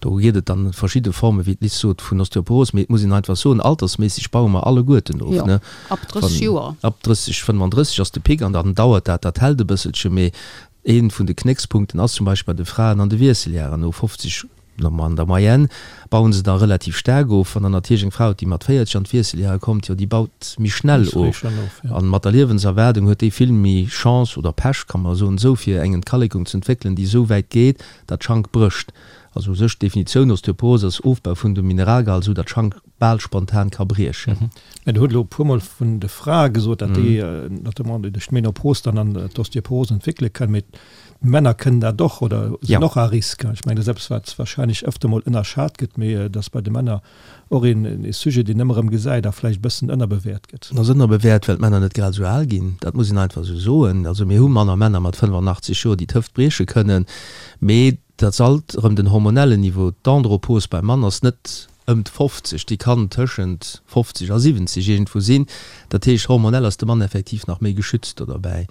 Do geet et dann verschidde Formen, wéi d'Liz sot, vun Osteoporos. Mee et muss een einfach soen, altersméisseg baue mer alleguerten of, Jo, ne? ab 30 Joer. Ab 30, 35 ass de Pic an dann dauert dat, dat hält e bësselche. Mee ee vun de Knéckspunkten ass zum Beispill bei de Fraen an de Wiesseljaren, no 50, An der Moyenne bauen se da relativ staark of. Wann der natierlech eng Fra hutt, déi mat 40 an d'Wiesseljahre kommt, jo, déi baut méi schnell of. A mat der Liewenserwaardung huet déi vill méi Chance, oder Pech, kann mer soen esou, fir eng Entkalekung ze entwéckelen, déi esou wäit geet, datt d'Schank brécht. Also u sech d'Definitioun Osteoporose ass Ofbau vun dem Mineralgehalt, esou datt d'Schank bal spontan ka briechen. Mä Der hutt elo e puermol vun de Frae gesot, datt déi notamment duerch d'Menopos dann an d'Osteoporose entwéckele kënnen. Mee D'Männer kënnen dat och oder sinn och à risque. Ech mengen, dat ass eppes, wat warscheinlech ëfter mol ënnerschat gëtt, mee et ass bei de Männer och een Sujet, deen ëmmer erëm gesäit a vläicht e bëssen ënnerbewäert gëtt. En ass ënnerbewäert, well d'Männer net grad esou al ginn. Dat muss een einfach esou soen. Also mir hu manner Männer mat 85 Joer, déi d'Hëft brieche kënnen, mee Dat ass alt erëm den hormonellen Niveau. D'Andropos beim Mann ass net ëm d'fofzeg, déi kann tëschent 50 a 70 iergendwou sinn. Dat heescht, hormonell ass de Mann effektiv nach méi geschützt do derbäi.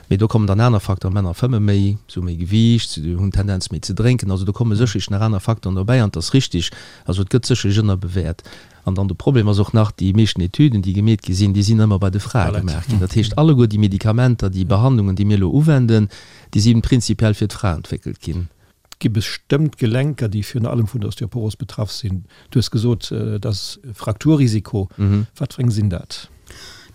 Mee do kommen dann aner Facteuren, Männer fëmme méi, se hu méi Gewiicht, se hunn d'Tendenz méi ze drénken. Also do komme sécherlech nach aner Facteuren dobäi an et ass richtig, also et gëtt sécherlech ënnerbewäert. An dann de Problem ass och nach, déi meeschten Etüden, déi gemeet gi sinn, déi sinn ëmmer bei de Frae gemaach ginn. Dat heescht, alleguer déi Medikamenter, déi Behandlungen, déi mir elo uwenden, déi si prinzipiell fir d'Fra entwéckelt ginn. Et gi bestëmmt Gelenker, déi virun allem vun der Osteoporos betraff sinn. Du hues gesot, et ass e Frakturrisiko. Wat fir eng sinn dat?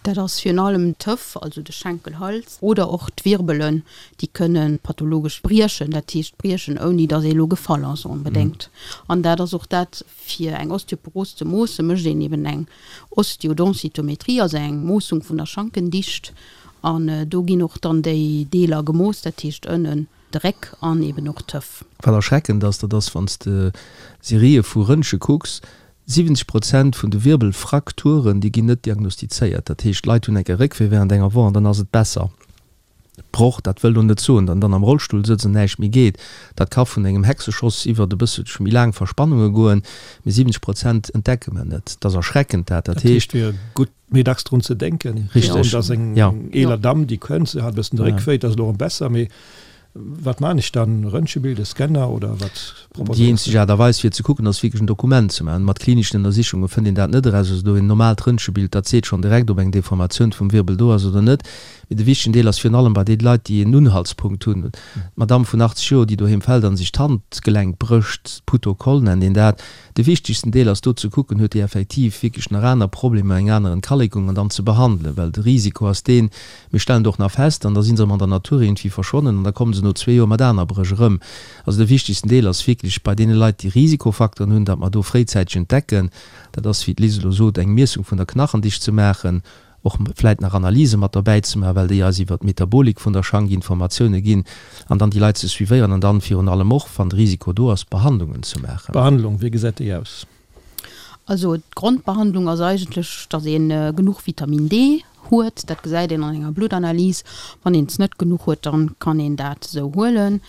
Dat ass virun allem d'Hëff, also de Schenkelhals, oder och d'Wirbelen, déi kënne pathologesch briechen, dat heescht briechen, ouni datt ee elo gefall ass onbedéngt. An dat ass och dat, Fir eng Osteoporos ze moossen, mécht een eben eng Osteodensitometrie, also eng Moossung vun der Schankendicht. An do ginn och dann déi Deeler gemooss, dat heescht ënnen de Réck an eben och d'Hëff. Wat erschreckend ass, dat ass, wann s de Serië vu Röntge kucks, 70 Prozent vun de Wirbelfrakturen, déi ginn net diagnostizéiert. Dat heescht, d'Leit hunn enke Réckwéi während enger Woch an dann ass et besser. Broch, dat wëll lo net soen, datt en dann am Rollstull sëtzt an näischt méi geet. Dat ka vun engem Hexeschoss iwwert e bësselche méi laang Verspannunge goen, mee 70 Prozent entdecke mer net. Dat ass erschreckend, dat. Dat heescht. Et wier gutt, méi dacks drun ze denken. Richteg, jo. Dass eng eeler Damm, déi kënnt, se hat e bëssen de Réck wéi, et ass elo erëm besser, mee wat maan ech dann? Röntgenbild, e Scanner oder wat proposéiers du? Déi eenzeg Aart a Weis fir ze kucken ass wierklech en Dokument ze maachen. Mat klineschen Ënnersichunge fënnt een dat net eraus. Also do een normaalt Röntgenbild, dat seet schonn direkt, ob eng Deformatioun vum Wirbel do ass oder net. Mee de wichtegen Deel ass virun allem bei deene Leit, déi en Unhaltspunkt hunn. D'Madamm vun 80 Joer, déi doheem fält an sech d'Handgelenk brécht, Putokoll nennt een dat. De wichtegsten Deel ass do ze kucken, huet déi effektiv wierklech nach aner Problemer, eng aner Entkalekung an dann ze behandelen. Well de Risiko ass deen, mir stellen et och nach fest an da si se erëm an der Natur iergendwéi verschwonnen an da komme se no zwee Joer mat aner Bréch erëm. Also de wichtegsten Deel ass wierklech bei deene Leit, déi Risikofacteuren hunn, datt mer do fréizäiteg entdecken, dat ass, wéi d'Liz elo sot, eng Miessung vun der Knachendicht ze maachen, och vläit nach Analyse mat derbäi ze maachen, well déi eis iwwert d'Metabolik vun der Schank Informatioune ginn, an dann déi Leit ze suivéieren an dann virun allem och, wann de Risiko do ass, Behandlungen ze maachen. D'Behandlung, wéi gesäit déi aus? Also d'Grondbehandlung ass eigentlech, datt ee genuch Vitamin D. huet. Dat gesäit een an enger Bluttanalys. Wann een es net genuch huet, dann kann een dat esou huelen.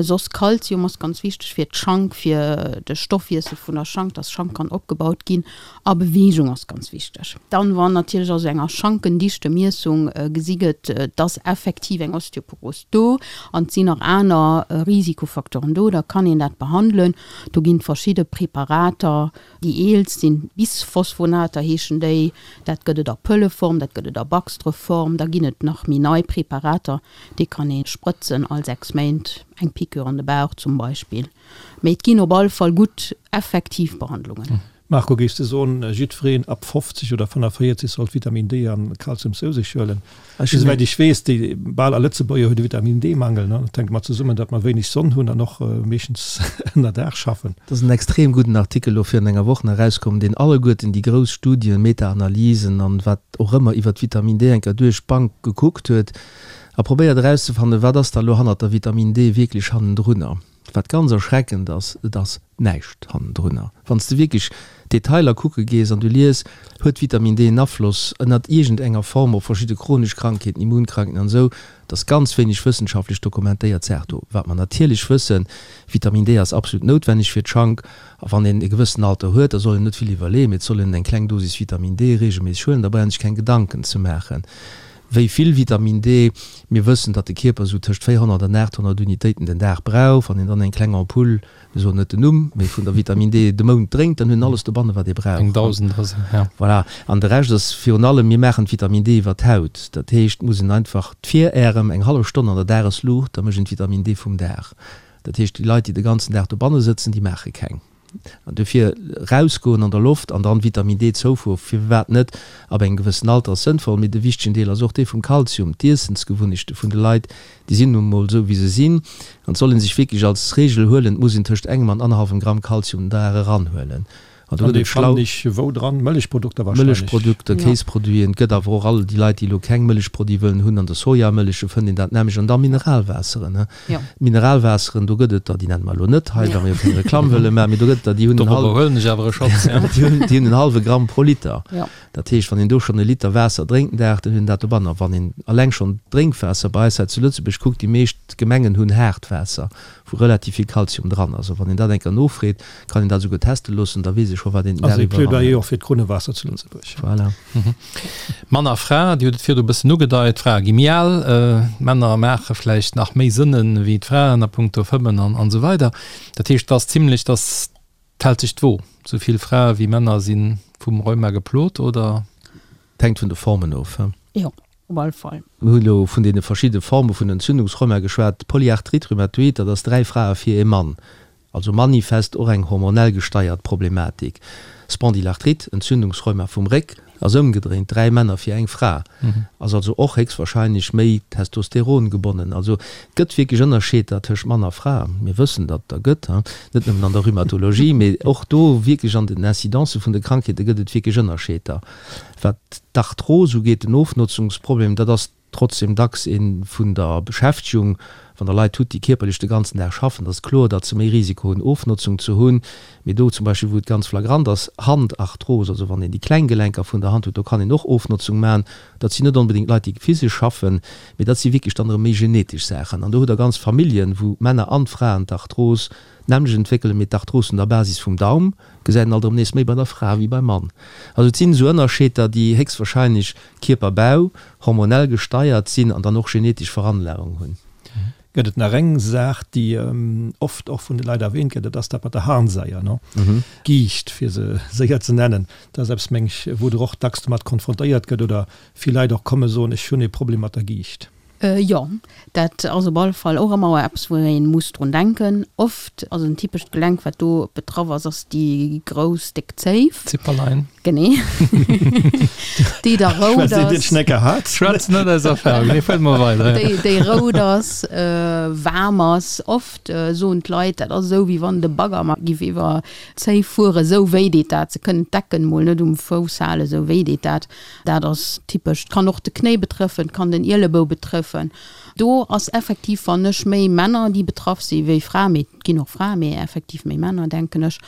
Soss Kalzium ass ganz wichteg fir d'Schank, fir de Stoffwiessel vun der Schank, dass Schank kann opgebaut ginn. A Beweegung ass ganz wichteg. Dann, wann natierlech a sou enger Schankendichtemiessung gesi gëtt, et ass effektiv eng Osteoporos do an et sinn nach aner Risikofacteuren do, da kann een dat behandelen. Do ginn et verschidde Preparater. Déi eelst sinn Bisphosphonater heeschen déi. Dat gëtt et a Pëlleform, dat gëtt et a Baxtreform. Da ginn et nach méi nei Preparater, déi kann ee sprëtzen all 6 Méint, eng Piqûre an de Bauch zum Beispill. Mee et ginn op alle Fall gutt effektiv Behandlungen. Marco, géifs de soen, jiddwereen ab 50 oder 45 sollt Vitamin D an Kalzium zou sech huelen? Esouwäit ech weess, déi bal all Lëtzebuerger huet e Vitamin D-Mangel. Dat hänkt mat zesummen, datt mer wéineg Sonn hunn an och meeschtens ënner Daach schaffen. Et ass en extrem gudden Artikel elo virun enger Woch nach erauskomm, deen alleguerten déi grouss Studien, Meta-Analysen an wat och ëmmer iwwert Vitamin D eng Kéier duerch d'Bank gekuckt huet a probéiert erauszefannen, wat ass da elo hannert der Vitamin D wierklech hannendrunner. Wat ganz erschreckend ass, et ass näischt hannendrunner. Wann s de wierklech d'Detailer kucke gees an du lies, huet Vitamin D en Afloss ënnert iergend enger Form op verschidde chronesch Krankheeten, Immunkrankheeten an esou, et ass ganz wéineg wëssenschaftlech dokumentéiert Saach do. Wat mer natierlech wëssen, Vitamin D ass absolut noutwenneg fir d'Schank a wann een e gewëssen Alter huet, da soll een net vill iwwerleeën, mee et soll een eng kleng Dosis Vitamin D reegelméisseg huelen, da brauch een sech keng Gedanken ze maachen. Wéi vill Vitamin D? Mir wëssen, datt de Kierper esou tëscht 400 an 800 Unitéiten den Dag brauch. Wann een dann eng kleng Ampull, mir soen net den Numm, mee vun der Vitamin D de Mount drénkt, dann huet en alles dobanne wat ee brauch. Eng 1.000 ass et, ja. Voilà. An de Rescht ass virun allem, mir maachen d'Vitamin D iwwer d'Haut. Dat heescht, et muss een einfach d'Viräerem eng hallef Stonn an der Dagesluucht, da mécht een d'Vitamin D vum Dag. Dat heescht, déi Leit, déi de ganzen Dag dobanne sëtzen, déi maache keng. An dofir rausgoen an der Loft an dann Vitamin D Zoufuhr, firwat net, ab engem gewëssen Alter ass sënnvoll. Mee de wichtegen Deel ass och dee vum Kalzium. D'Iessensgewunnechte vun de Leit, déi sinn nun emol esou wéi se sinn. An et soll ee sech wierklech als Reegel huelen, et muss een tëscht engem an annerhallwem Gramm Kalzium den Dag eranhuelen. An do gëtt et schlau. Ech wou dran? Mëllechprodukter wahrscheinlech. Mëllechprodukter, Kéisproduiten. Et gëtt awer och all déi Leit, déi elo keng Mëllechproduite wëllen hunn, an de Sojamëlleche fënnt een dat nämlech. An da Mineralwaasseren. Mineralwaasseren, do gëtt et der, déi nenne mer elo net hei, well mer jo keng Reklamm wëlle maachen, mee do gëtt et der, déi hunn en Dorobber huelen ech awer e Schotz, ja. Déi hunn en hallwe Gramm pro Liter. Dat heescht, wann een do schonn e Liter Waasser drénkt den Dag, dann huet een dat dobannen. A wann een alleng schonn d'Drénkwaasser bei eis hei zu Lëtzebuerg kuckt, déi meescht Gemengen hunn haart Waasser, wou relativ vill Kalzium dran ass. A wann een dat eng Kéier nofreet, kann een dat esouguer teste loossen, da weess ee scho wat een den Dag iwwer. Also e Plaidoyer och fir d'Krunnewaasser zu Lëtzebuerg. Voilà. Mann a Fra, Dir hutt et virdu e bëssen ugedeit, d'Frae gi méi al, d'Männer maache vläicht nach méi Sënne wéi d'Fraen a punkto Fëmmen an esou weider. Dat heescht, et ass zimlech, dass d'hält sech d'Wo, esou vill Frae wéi Männer si vum Rheuma geplot, oder? Et hänkt vun de Formen of. Jo, op alle Fall. Mir hunn elo vun deene verschidde Forme vun Entzündungsrheuma geschwat. D'Polyarthrite rhumatoïde, dat ass 3 Frae fir ee Mann. Also manifest och eng hormonell gesteiert Problematik. Spondylarthrite, Entzündungsrheuma vum Réck, ass ëmgedréint, 3 Männer fir eng Fra, ass also och héchstwahrscheinlech méi Testosteron gebonnen. Also et gëtt wierklech Ënnerscheeder tëscht Mann a Fra. Mir wëssen, datt et der gëtt, net nëmmen an der Rhumatologie, mee och do wierklech an den Incidencë vun de Krankheete gëtt et wierklech Ënnerscheeder. Wat d'Arthros ugeet, den Ofnotzungsproblem, dat ass Trotzdem dacks ee vun der Beschäftegung. Wann der Leit hutt, déi kierperlech de ganzen Dag schaffen, da ass et kloer, datt se méi Risiko hunn, Ofnotzung ze hunn. Mee do zum Beispill, wou et ganz flagrant ass, Handarthros, also wann een déi kleng Gelenker vun der Hand huet, do kann een och Ofnotzung maachen. Dat sinn net onbedéngt Leit, déi physesch schaffen, mee dat si wierklech dann erëm méi genetesch Saachen. An do hutt Der ganz Familljen, wou d'Männer an d'Fraen d'Arthros d'nämmlecht entwéckelen, mee d'Arthros un der Basis vum Daum gesäit een alt erëm nees méi bei der Fra wéi beim Mann. Also et sinn esou Ënnerscheeder, déi héchstwahrscheinlech Kierperbau, hormonell gesteiert sinn an dann och genetesch Veranlagung hunn. Gëtt et nach eng Saach, déi oft och vun de Leit erwähnt gëtt, dat ass dat mat der Harnsaier, no? Giicht, fir se séier ze nennen. Dat ass eppes, meng ech, wou Der och dacks domat konfrontéiert gëtt oder vill Leit och komme soen, ech hunn e Problem mat der Giicht. Jo, dat ass op alle Fall och ëmmer eppes, wou ee muss drun denken. Oft ass en typescht Gelenk, wat do betraff ass, ass déi grouss déck Zéif. Zipperlein. Genee. Déi da rout ass. Schwätzt een Schnecker hat. Schwätz net aus Erfahrung. Nee, fuert mol weider. Déi, déi rout ass, waarm ass. Oft soen d'Leit, dat ass esou, wéi wann de Bagger mar giff iwwer d'Zéif fueren, esou wéi deet dat. Se kënnen d'Decken mol net um Fouss halen, esou wéi deet dat. Dat ass typesch. Et kann och de Knéi betrëffen, et kann den Ielebou betrëffen. betreffen. Do ass effektiv, fannen ech, méi Männer, déi betraff si wéi Fraen, mee et ginn och Fraen, mee effektiv méi Männer, denken ech.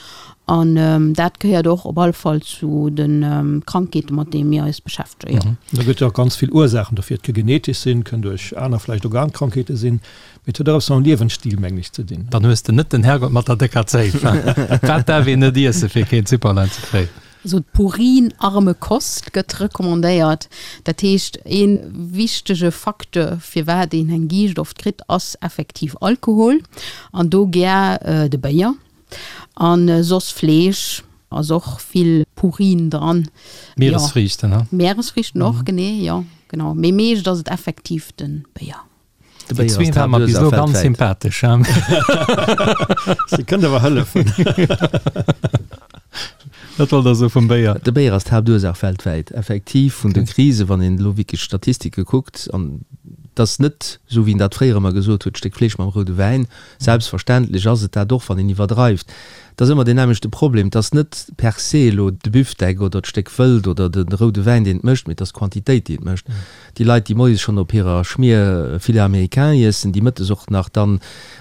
An dat gehéiert och op alle Fall zu de Krankheete mat deene mir eis beschäftegen, jo. Da gëtt jo och ganz vill Ursaachen dofir. Et ka genetesch sinn, kënn duerch aner vläicht Organkrankheete sinn, mee et huet och eppes mam Liewensstil, mengen ech, ze dinn. Dann hues de net den Herrgott mat der décker Zéif. Wat däerf een net iessen, fir keen Zipperlein ze kréien? Also d'purinarme Kost gëtt recommandéiert. Dat heescht, ee wichtege Facteur, firwat een eng Giicht oft kritt, ass effektiv Alkohol an do gär de Béier. An soss Fleesch ass och vill Purin dran. Mieresfriichten, he? Mieresfriichten och, genee, jo, genau. Mee meescht ass et effektiv de Béier. De Béier ass d'Haaptursaach weltwäit. Déi zwee ware mer bis elo ganz sympathesch, he? Si kënnt awer hëllefen. Wat wollt Der soe vum Béier? De Béier ass d'Haaptursaach weltwäit, effektiv, vun de Krisen, wann een elo wierklech d'Statistike kuckt. An et ass net, esou wéi een dat fréier ëmmer gesot huet, d'Stéck Fleesch mam roude Wäin. Selbstverständlech ass et dat och, wann een iwwerdreift. Et ass ëmmer deen nämmlechte Problem, Et ass net per se elo de Büfdeck oder d'Stéck Wëld oder de roude Wäin, deen et mécht, mee et ass d'Quantitéit, déi et mécht. Déi Leit, déi moies schonn op hirer Schmier Filet américain iessen, déi mëttes och nach dann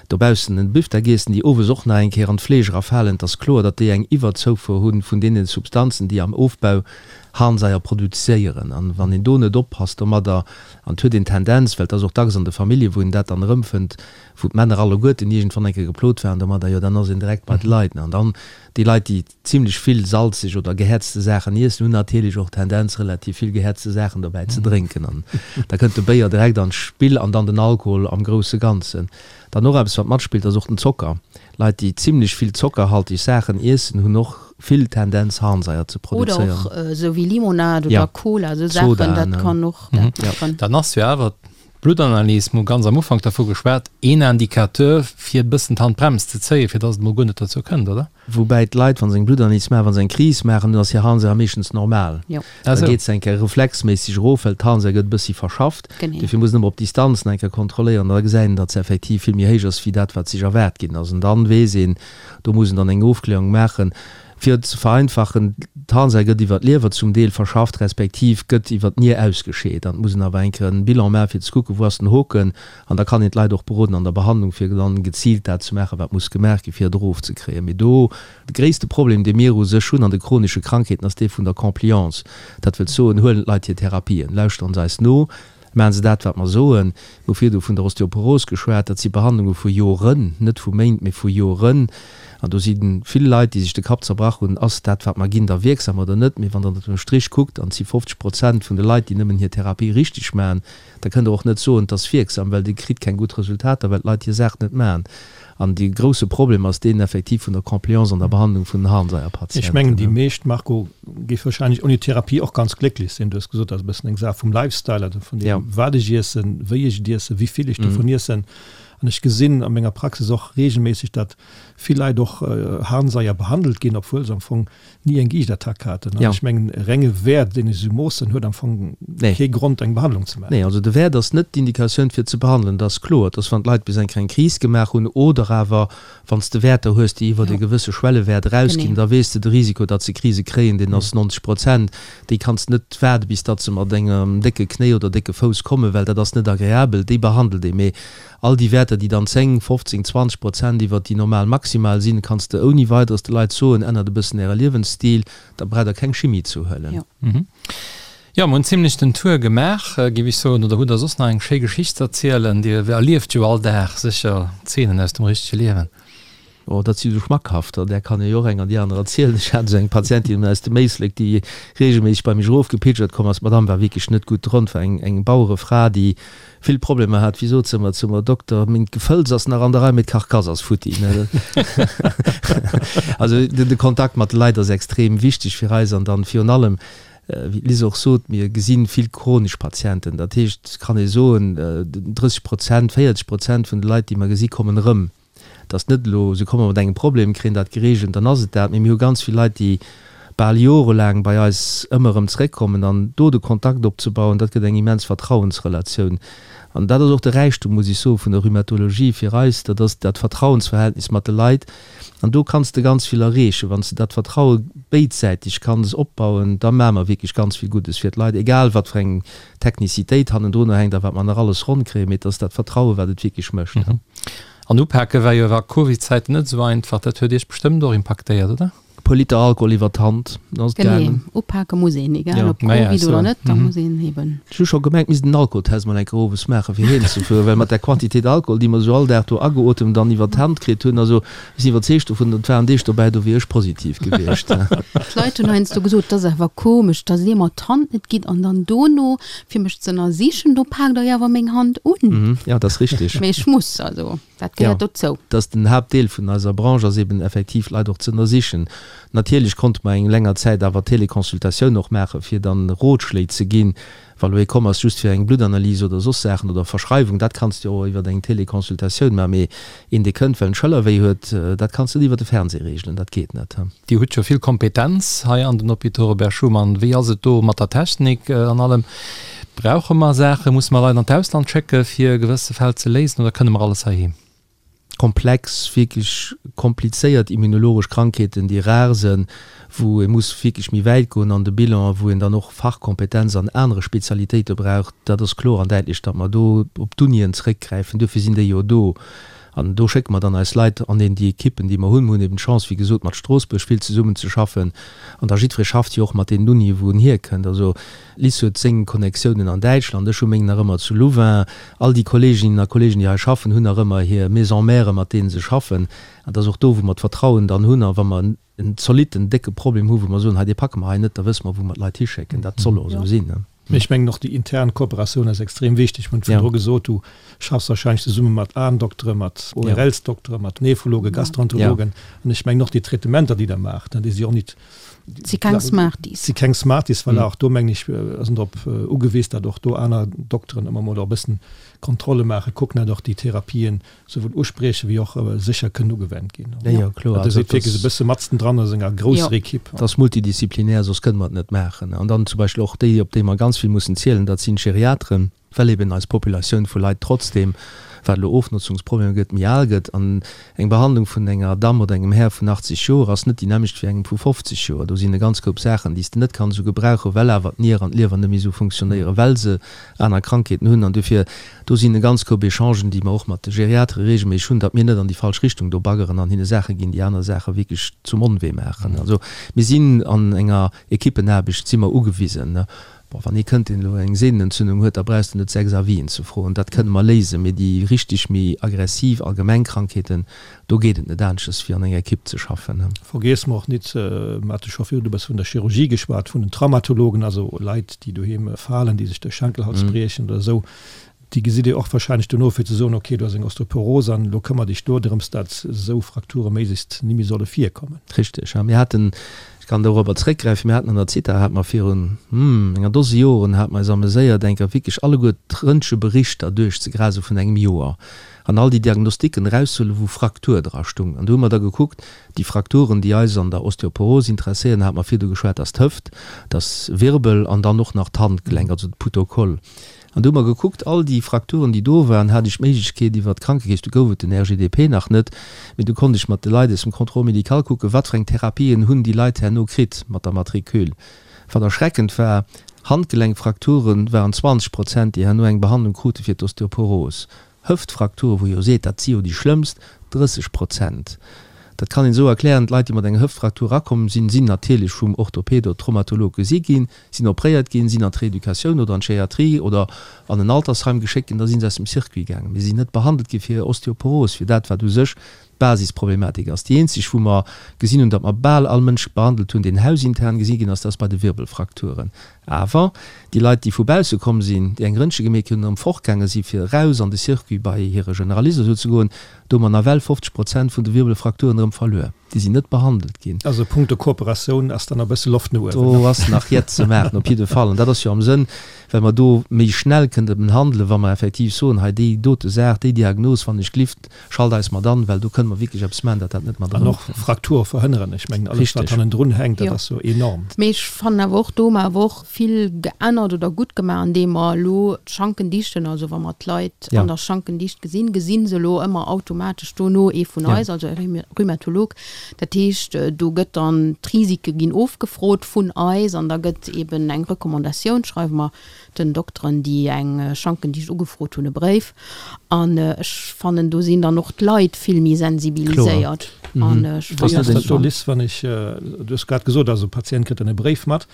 dobaussen en Büfdeck iessen, déi owes och nach eng Kéier an d'Fleesch erafalen, et ass kloer, datt déi eng Iwwerzoufuer hu vun deene Substanzen, déi am Ofbau Harnsaier produzéieren. An wann een do net oppasst domadder, an et huet een d'Tendenz, well et ass och dacks an de Famillje wou een dat dann erëmfënnt, wou d'Männer alleguerten iergendwann eng Kéier geplot waren domadder, jo dann ass een direkt bei de Leit. An dann déi Leit, déi zimlech vill salzeg oder gehäerzte Saachen iessen, hunn natierlech och d'Tendenz relativ vill gehäerzte Saachen dobäi ze drénken. An da kënnt de Béier direkt an d'Spill an dann den Alkohol am grousse Ganzen. Dann och eppes wat matspillt ass och den Zocker. Leit, déi zimlech vill zockerhaltig Saachen iessen, hunn och vill Tendenz Harnsaier ze produzéieren. Oder och esou wéi Limonade oder Cola, esou Saachen, dat kann och dat maachen. Dann ass jo awer D'Bluttanalys, mir hu ganz am Ufank dervu geschwat, een Indicateur, fir e bëssen d'Handbrems ze zéien, fir dass et emol guer net dozou kënnt, oder? Woubäi d'Leit, wa se eng Bluttanalys maachen, wa se eng Kris maachen, dann ass hir Harnsäure meeschtens normal. Da geet se eng Kéier reflexméisseg erof, well d'Harnsäure gëtt e bëssi verschafft. Dofir muss een ëmmer op Distanz nach eng Kéier kontrolléieren. Da gesäit een, datt se effektiv vill méi héich ass, wéi dat, wat sech erwaart ginn ass. An dann weess een, do muss een dann eng Ofklärung maachen. Fir et ze vereinfachen, d'Harnsäur gëtt iwwer d'Liewer zum Deel verschafft, respektiv gëtt iwwer d'Nier ausgescheet. An et muss een awer eng Kéier en Bilan maachen, fir ze kucken, wou ass den Hoken. An da kann een d'Leit och beroden an der Behandlung, fir dann geziilt dat ze maachen, wat muss gemaach ginn, fir et erofzekréien. Mee do, de gréisste Problem, dee mir u sech hunn an de chronesche Krankheeten, ass dee vun der Compliance. Dat wëllt soen, huelen d'Leit hir Therapien, lauschteren se eis no, Maachen se dat, wat mer soen? Mir hu virdu vun der Osteoporos geschwat. Dat si Behandlunge vu Joren, net vu Méint, mee vu Joren. An do si vill Leit, déi sech de Kapp zerbrach hunn, Ass dat, wat mer ginn, da wierksam oder net? Mee wann Der ënner dem Strich kuckt, an et si 50 Prozent vun de Leit, déi nëmmen hir Therapie richteg maachen, da kënnt Der och net soen, et ass wierksam, well Dir kritt keng gutt Resultater, well d'Leit hir Saach net maachen. An dee grousse Problem ass deen effektiv vun der Compliance an der Behandlung vun den Harnseierpatienten. Ech mengen, déi meescht, Marco, géife wahrscheinlech ouni Therapie och ganz glécklech sinn. Du hues gesot, dat ass e bëssen eng Saach vum Lifestyle, also vun deem, wat ech iessen, wéi ech et iessen, wéi vill ech dovun iessen. An ech gesinn a menger Praxis och reegelméisseg, datt vill Leit och Harnseier behandelt ginn, obwuel se am Fong ni eng Giichtattack haten. An ech mengen, e renge Wäert, deen ech esou moossen, huet am Fong kee Grond, eng Behandlung ze maachen. Nee, also de Wäert ass net d'Indikatioun, fir ze behandelen. Dat ass kloer, dass wann d'Leit bis eng kleng Kris gemaach hunn oder awer wann s de Wäerter hues, déi iwwert e gewësse Schwellewäert erausginn, da weess de, de Risiko, datt se Krise kréien, deen ass 90 Prozent. Déi kanns de net waarde bis datt se mat engem décke Knéi oder décke Fouss kommen, well dat ass net agreabel. Déi behandelt ee. Mee All déi Wäerter, déi dann 10, 15, 20 Prozent iwwert déi normal maximal sinn, kanns de ouni Weideres de Leit soen, ännert e bëssen äre Liewensstil, da braucht der keng Chimie ze huelen. Jo, mer hunn zimlech den Tour gemaach, géif ech soen. Oder hutt der soss nach eng schéi Geschicht ze erzielen? Dir erlieft jo all Dag sécher Zeenen aus dem richtege Liewen. Oh, dat si sou schmackhafter, där kann ee jo och eng an déi aner erzielen. Ech hat esou eng Patientin aus dem Éislek, déi reegelméisseg bei mech erofgepilgert komm ass. D'Madame war wierklech net gutt drun, war eng eng Bauerefra, déi vill Problemer hat. Wéi sot se ëmmer zu mer, Dokter, meng Gefëlls ass nach an der Rei, mee d'Karkass ass futti. Also de Kontakt mat de Leit ass extrem wichteg fir eis an dann virun allem, wéi d'Liz och sot, mir gesi vill chronesch Patienten. Dat heescht, kann ee soen, 30 Prozent, 40 Prozent vun de Leit, déi mer gesi kommen erëm. Et ass net elo, se komme mat engem Problem, kréien dat gereegelt, dann ass et dat. Mee mir hu ganz vill Leit, déi. bal jorelaang bei eis ëmmer erëm zeréckkommen an do de Kontakt opzebauen, dat gëtt eng immens Vertrauensrelatioun. An dat ass och de Räichtum, muss ech soen, vun der Rhumatologie fir eis, dat ass dat Vertrauensverhältnis mat de Leit. An do kanns de ganz vill erreechen. Wann s de dat Vertraue béidsäiteg kanns opbauen, da maache mer wierklech ganz vill Guddes fir d'Leit, egal wat fir eng Technicitéit hannendrunner hänkt a wat mer nach alles ronn kréien, mee et ass dat Vertraue wat et wierklech mécht. An upake war jo a Covid-Zäiten net esou einfach. Dat huet Iech bestëmmt och impaktéiert, oder? E puer Liter Alkohol iwwer d'Hand, dann ass et Genee, gaangen. upake muss een, egal Ja. ob Naja, Covid so. oder net, da muss een eben. Ech hu scho gemengt, misst en Alkoholtest mol eng Kéier owes maachen, fir heem ze fueren, well mat där Quantitéit Alkohol, déi mer esou all Dag do ageotemt an iwwer d'Hand kritt hunn, also ech sinn iwwerzeegt dovun, et waren Deeg dobäi, do wier ech positiv gewiescht. D'Leit hunn heiansdo gesot, 't ass awer komesch, dass Dir mer d'Hand net gitt an dann dono, fir mech ze ënnersichen, do paakt Der jo awer meng Hand un. Jo, dat ass richteg. Mee ech muss, also. Dat gehéiert dozou. Dat ass den Haaptdeel vun eiser Branche, ass eben effektiv d'Leit och ze ënnersichen. Natierlech konnte mer eng länger Zäit awer Teleconsultatioun och maachen, fir dann Rotschléi ze ginn, wa lo ee komm ass just fir eng Bluttanalyse oder soss Saachen oder Verschreiwung, dat kanns de jo och iwwer eng Teleconsultatioun maachen. Mee een, dee kënnt, well en Schëllerwéi huet, dat kanns de net iwwer de Fernseh reegelen, dat geet net. Dir hutt jo vill Kompetenz hei an den Hôpitaux Robert Schuman. Wéi ass et do mat der Technik an allem? Brauche mer Saachen? Musse mer Leit an d'Ausland schécke fir gewësse Fäll ze léisen oder kënne mer alles heiheem? Komplex, wierklech komplizéiert immunologesch Krankheeten, déi rar sënn, wou ee muss wierklech méi wäit goen an de Bilan a wou een dann och Fachkompetenz an anere Spezialitéite brauch, dat ass kloer an däitlech, datt mer do op d'Unien zrëckgräifen. Duerfir sinn déi jo do. An do schécke mer dann eis Leit an eben déi Ekippen, déi mer hunn. Mer hunn eben d'Chance, wéi gesot, mat Stroossbuerg vill zesummenzeschaffen. An da jiddweree schafft jo och mat deenen Unien, wou en hierkënnt. Also Liz huet seng Connectiounen an Däitschland, ech hu meng nach ëmmer zu Louvain. All déi Kolleeginnen a Kolleegen, déi hei schaffen, hunn nach ëmmer hir Maison mère, mat deene se schaffen. An et ass och do, wou mer d'Vertrauen dann hunn. A wa mer en zolitten, décke Problem hu wou mer soen, hei dee packe mer hei net, da wësse mer wou mer d'Leit hischécken. Dat soll och esou sinn. Mee ech mengen och déi intern Kooperatioun ass extrem wichteg. Mir hunn virdru gesot, du schaffs wahrscheinlech zesumme mat Aendoktere, mat ORLsdoktere, mat Nephrologen, Gastroenterologen. An ech mengen och déi Traitementer, déi Der maacht, déi si och nit, Si keng Smarties. Si keng Smarties, voilà. Och do mengen ech ass en drop ugewiss, datt och do aner Dokteren ëmmer mol och e bëssen Kontrolle maachen, kucken, datt och déi Therapien souwuel usprieche wéi och sécher kënnen ugewennt ginn. Jo, jo, kloer. Also dat ass wierklech e bësse matzen dran a senger grousser Ekipp. Dat ass multidisziplinär, soss kënne mer et net maachen. An dann zum Beispill och déi, op déi mer ganz vill mussen zielen, dat sinn d'Geriateren, well eben eis Populatioun vu Leit trotzdeem, wat elo Ofnotzungsproblemer gëtt, méi al gëtt. An eng Behandlung vun enger Damm oder engem Här vun 80 Joer ass net déi nämmlecht wéi engem vu 50 Joer. Do sinn e ganz Koup Saachen, déi s de net kanns esou gebrauchen, well awer d'Nier an d'Liewer net méi esou funktionéieren, well se aner Krankheeten hunn. An dofir Do sinn e ganz Koup Echangen, déi mer och mat de Geriatere regelméisseg hunn, datt mir net an déi falsch Richtung do baggeren an hinne Saache ginn, déi aner Saache wierklech zum Onwee maachen. Also mir sinn an enger Ekippenaarbecht si mer ugewisen. Bon, wann ee kënnt, deen elo eng Sehnenentzündung huet, da brauchs de net 6 Avisen ze froen, dat kënne mer léisen. Mee déi richtig méi aggressiv allgemeng Krankheeten, do geet et net aneschters wéi an enger Ekipp ze schaffen. Vergiesse mer och nit, mer hate scho virdu e bësse vun der Chirurgie geschwat, vun den Traumatologen, also Leit, déi doheem falen, déi sech de Schenkelhals briechen oder esou. Déi gesitt Dir och wahrscheinlech dono, fir ze soen, ok, du has eng Osteoporose an elo këmmer dech do drëms, dat esou Frakture méiglechst ni méi solle virkommen. Richteg, ja. Mir haten, ech kann dorobber zréckgräifen, mir haten an der Zitha, hate mer virun, hm, enger Dose Joren, hate mer eis ameséiert, eng Kéier wierklech alleguer d'Röntgeberichter duerchzegrasen vun engem Joer an all déi Diagnostiken erauszehuelen, wou Fraktur dra stung. An do hu mer da gekuckt, déi Frakturen, déi eis an der Osteoporose interesséieren, hate mer virdu geschwat, dass d'Hëft, dass Wirbel an dann och nach d'Handgelenk, also de Putokoll. An du hu mer gekuckt, all déi Frakturen, déi do waren, hat ech d'Méiglechkeet iwwert d'Krankekeess, du gouf et den RGDP nach net, mee du konnt ech mat de Leit aus dem Contrôle médical kucken, wat fir eng Therapien hunn déi Leit herno kritt mat der Matricule. Wat erschreckend war, Handgelenkfrakture waren 20 Prozent, déi herno eng Behandlung krute fir d'Osteoporos. Hëftfrakture, wou ee jo seet, dat si jo déi schlëmmst, 30 Prozent. Dat kann een esou erklären, D'Leit, déi mat enger Hëftfraktur erakomm sinn, sinn natierlech vum Orthoped oder Traumatolog gesi ginn, sinn opréiert ginn, sinn an d'Reeducatioun oder an d'Geriatrie oder an en Altersheim geschéckt ginn, da si se aus dem Circuit gaangen. Mee si sinn net behandelt gi fir Osteoporos, fir dat, wat u sech d'Basisproblematik ass. Déi eenzeg, wou mer gesinn hunn, datt mer bal all Mënsch behandelt hunn, deen hausintern gesi ginn ass, dat ass bei de Wirbelfrakturen. Awer déi Leit, déi vu bausse komm sinn, déi eng Röntge gemeet hunn, erëm fortgaange si fir eraus an de Circuit bei hire Generalist oder esou ze goen, do hu mer nawell 50 Prozent vun de Wirbelfrakturen erëm verluer. Déi sinn net behandelt ginn. Also punkto Kooperatioun ass da nach e bësse Loft no uewen. Do ass nach Jett ze maachen, op jidde Fall. An dat ass jo am Sënn. Well mer do méi schnell kënnten handelen, wa mer effektiv soen, hei déi dote Saach, déi Diagnos, wann ech glift, schalt eis mat an, well do kënne mer wierklech eppes maachen, datt dat net mat An och Fraktur verhënneren. Ech mengen, alles wat hannendrun hänkt, dat ass jo enorm. Mee ech fannen awer och, do hu mer awer och vill geännert oder gutt gemaach, andeem mer elo d'Schankendichten, also wa mer d'Leit an der Schankendicht gesinn, gesi se elo ëmmer automatesch dono ee vun eis, also e Rhumatolog, Dat heescht, do gëtt dann, d'Risike ginn ofgefrot vun eis an da gëtt eben eng Recommandatioun, schreiwe mer den Dokteren, déi eng Schankendicht ugefrot hunn, e Bréif. An ech fannen, do sinn dann och d'Leit vill méi sensibiliséiert. An ech fannen dat schon. Liz, wann ech, du hues grad gesot, also e Patient kritt dann e Bréif mat.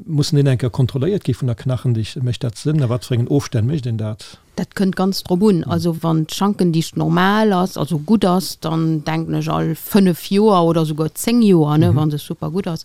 Mussen deen eng Kéier kontrolléiert gi vun der Knachendicht? Mécht dat Sënn? A wat fir engen Ofstänn mécht een dat? Dat kënnt ganz drop un. Also wann d'Schankendicht normal ass, also gutt ass, dann denken ech all 5 Joer oder souguer 10 Joer, ne, wa se super gutt ass.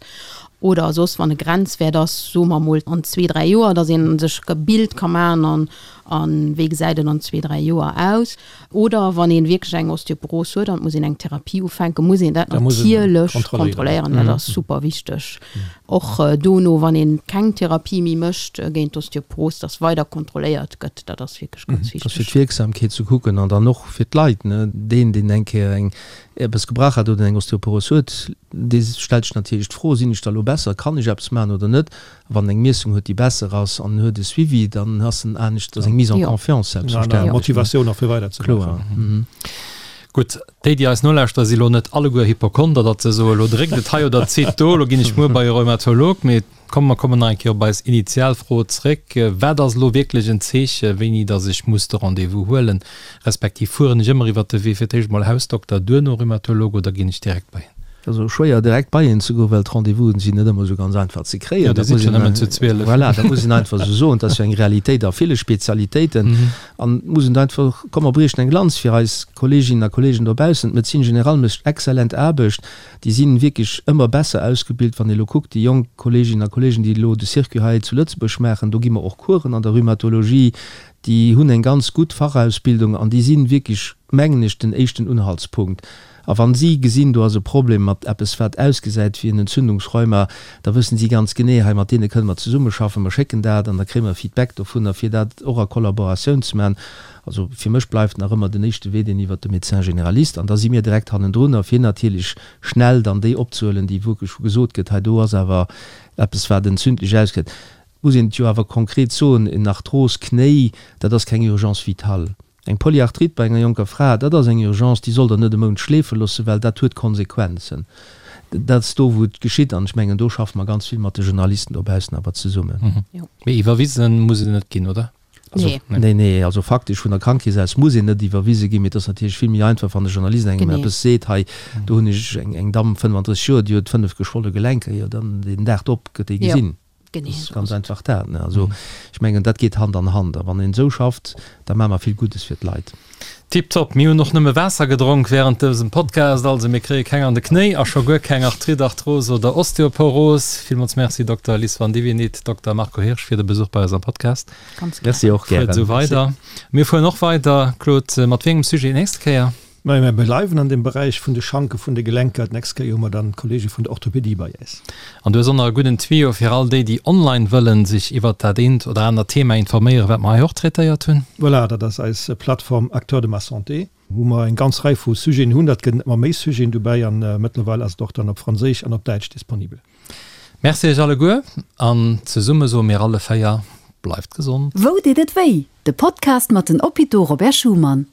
Oder soss wann e Grenzwäert ass, soe mer mol an zwee, dräi Joer, datt ee sech e Bild ka maachen an a wéi gesäit et an zwee, dräi Joer aus. Oder wann ee wierklech eng Osteoporos huet an et muss een eng Therapie ufänken, muss een dat natierlech kontrolléieren. Dat ass super wichteg. Och dono, wann ee keng Therapie méi mécht géint d'Osteoporos, dass weider kontrolléiert gëtt. Dat ass wierklech ganz wichteg. Dat ass fir d'Wierksamkeet ze kucken an dann och fir d'Leit. Deen, deen eng Kéier eng eppes gebrach hat oder eng Osteoporos huet, dee stellt sech natierlech d'Fro, Sinn ech da elo besser? Kann ech eppes maachen oder net? Wann en eng Miessung huet, déi besser ass an en huet e Suivi, dann ass en anescht, ass eng Mise en confiance selbstverständlech. Motivatioun och fir weider ze maachen. Gutt, déi, déi eis nolauschteren, si lo net alleguer Hypochonder, datt se soen, elo dréckt et hei oder zitt do, elo ginn ech muer bei e Rheumatolog. Mee komm, mer kommen nach eng Kéier op eis initial Fro zréck, Wat ass elo wierklech en Zeeche, wéini datt ech muss de Rendez-vous huelen? Respektiv fueren ech ëmmer iwwert de Wee fir d'éischt mol Hausdokter, duerno Rhumatolog oder ginn ech direkt bei een? Et ass och schwéier direkt bei een ze goen, well d'Rendez-vousen sinn net ëmmer esou ganz einfach ze kréien. Jo, Dir sidd jo nëmmen zu 12. Voilà, dat muss een einfach esou soen. Dat ass jo eng Realitéit a ville Spezialitéiten. An et muss een einfach, komm mer briechen eng Lanz fir eis Kolleeginnen a Kolleegen dobaussen, d'Médecine générale mécht exzellent Aarbecht. Déi si wierklech ëmmer besser ausgebilt. Wann ee elo kuckt, déi jonk Kolleeginnen a Kolleegen, déi elo de Circuit hei zu Lëtzebuerg maachen, do gi mer och Coursen an der Rhumatologie, déi hunn eng ganz gutt Fachausbildung an déi si wierklech, mengen ech, den éischten Unhaltspunkt. A wann si gesinn, do ass e Problem mat eppes, wat ausgesäit wéi en Entzündungsrheuma, da wëssen si ganz genee, hei mat deene kënne mer zesummeschaffen, mer schécken dat an da kréie mer Feedback dovunner, fir dat och a Kollaboratioun ze maachen. Also fir mech bleift nach ëmmer den éischte Wee deen iwwert de Médecin généraliste an da si mir direkt hannendrunner, fir natierlech schnell dann déi opzehuelen, déi wierklech, wou gesot gëtt, hei do ass awer eppes, wat entzündlech ausgesäit. Muss een et jo awer konkret soen, en Arthros-Knéi, dat ass keng Urgence vitale. Eng Polyarthrite bei enger jonker Fra, dat ass eng Urgence, déi sollt Der net e Mount schleefe loossen, well dat huet Konsequenzen. Dat ass do, wou et geschitt. An ech mengen, do schaffe mer ganz vill mat de Journalisten dobaussen awer zesummen. Mee iwwerwisen muss et net ginn, oder? Also, nee, nee, also faktesch vun der Krankekeess aus muss een net iwwerwise ginn, mee et ass natierlech vill méi einfach, wann de Journalist engem eppes seet, hei, do hunn ech eng Damm, 35 Joer, déi huet 5 geschwolle Gelenker, jo, dann deen Dag drop gëtt déi gesinn. Genee esou ass et. Ganz einfach dat. Ne? Also ech mengen, dat geet Hand an Hand. A wann een esou schafft, da maache mer vill Guddes fir d'Leit. Tiptop! Mir hunn och nëmme Waasser gedronk während dësem Podcast, also mir kréie keng an de Knéi a scho guer keng Arthrite, Arthrose oder Osteoporos. Villmools Merci Dokter Liz Vandivinit, Dokter Marco Hirsch fir de Besuch bei eis am Podcast. Ganz gär. Merci och gären. Fuert esou weider. Mir fueren och weider. Claude, mat wéi engem Sujet nächste Kéier? Majo, mir bleiwen an dem Beräich vun de Schanke vun de Gelenker. D'nächst Kéier hu mer dann d'Kollege vun der Orthopédie bei äis. An du hues och nach e gudden Tuyau fir all déi, déi online wëllen sech iwwert dat eent oder anert Thema informéieren, wat mer hei och traitéiert hunn. Voilà, dat ass eis Plattform Acteurs de ma santé, wou mer eng ganz Rei vu Sujeten hunn. Dat gëtt ëmmer méi Sujeten dobäi an mëttlerweil ass et och dann op Franséisch an op Däitsch disponibel. Merci iech alleguer an zesumme soe mir alle 4, Bleift gesond! Wou deet et wéi? De Podcast mat den Hôpitaux Robert Schuman.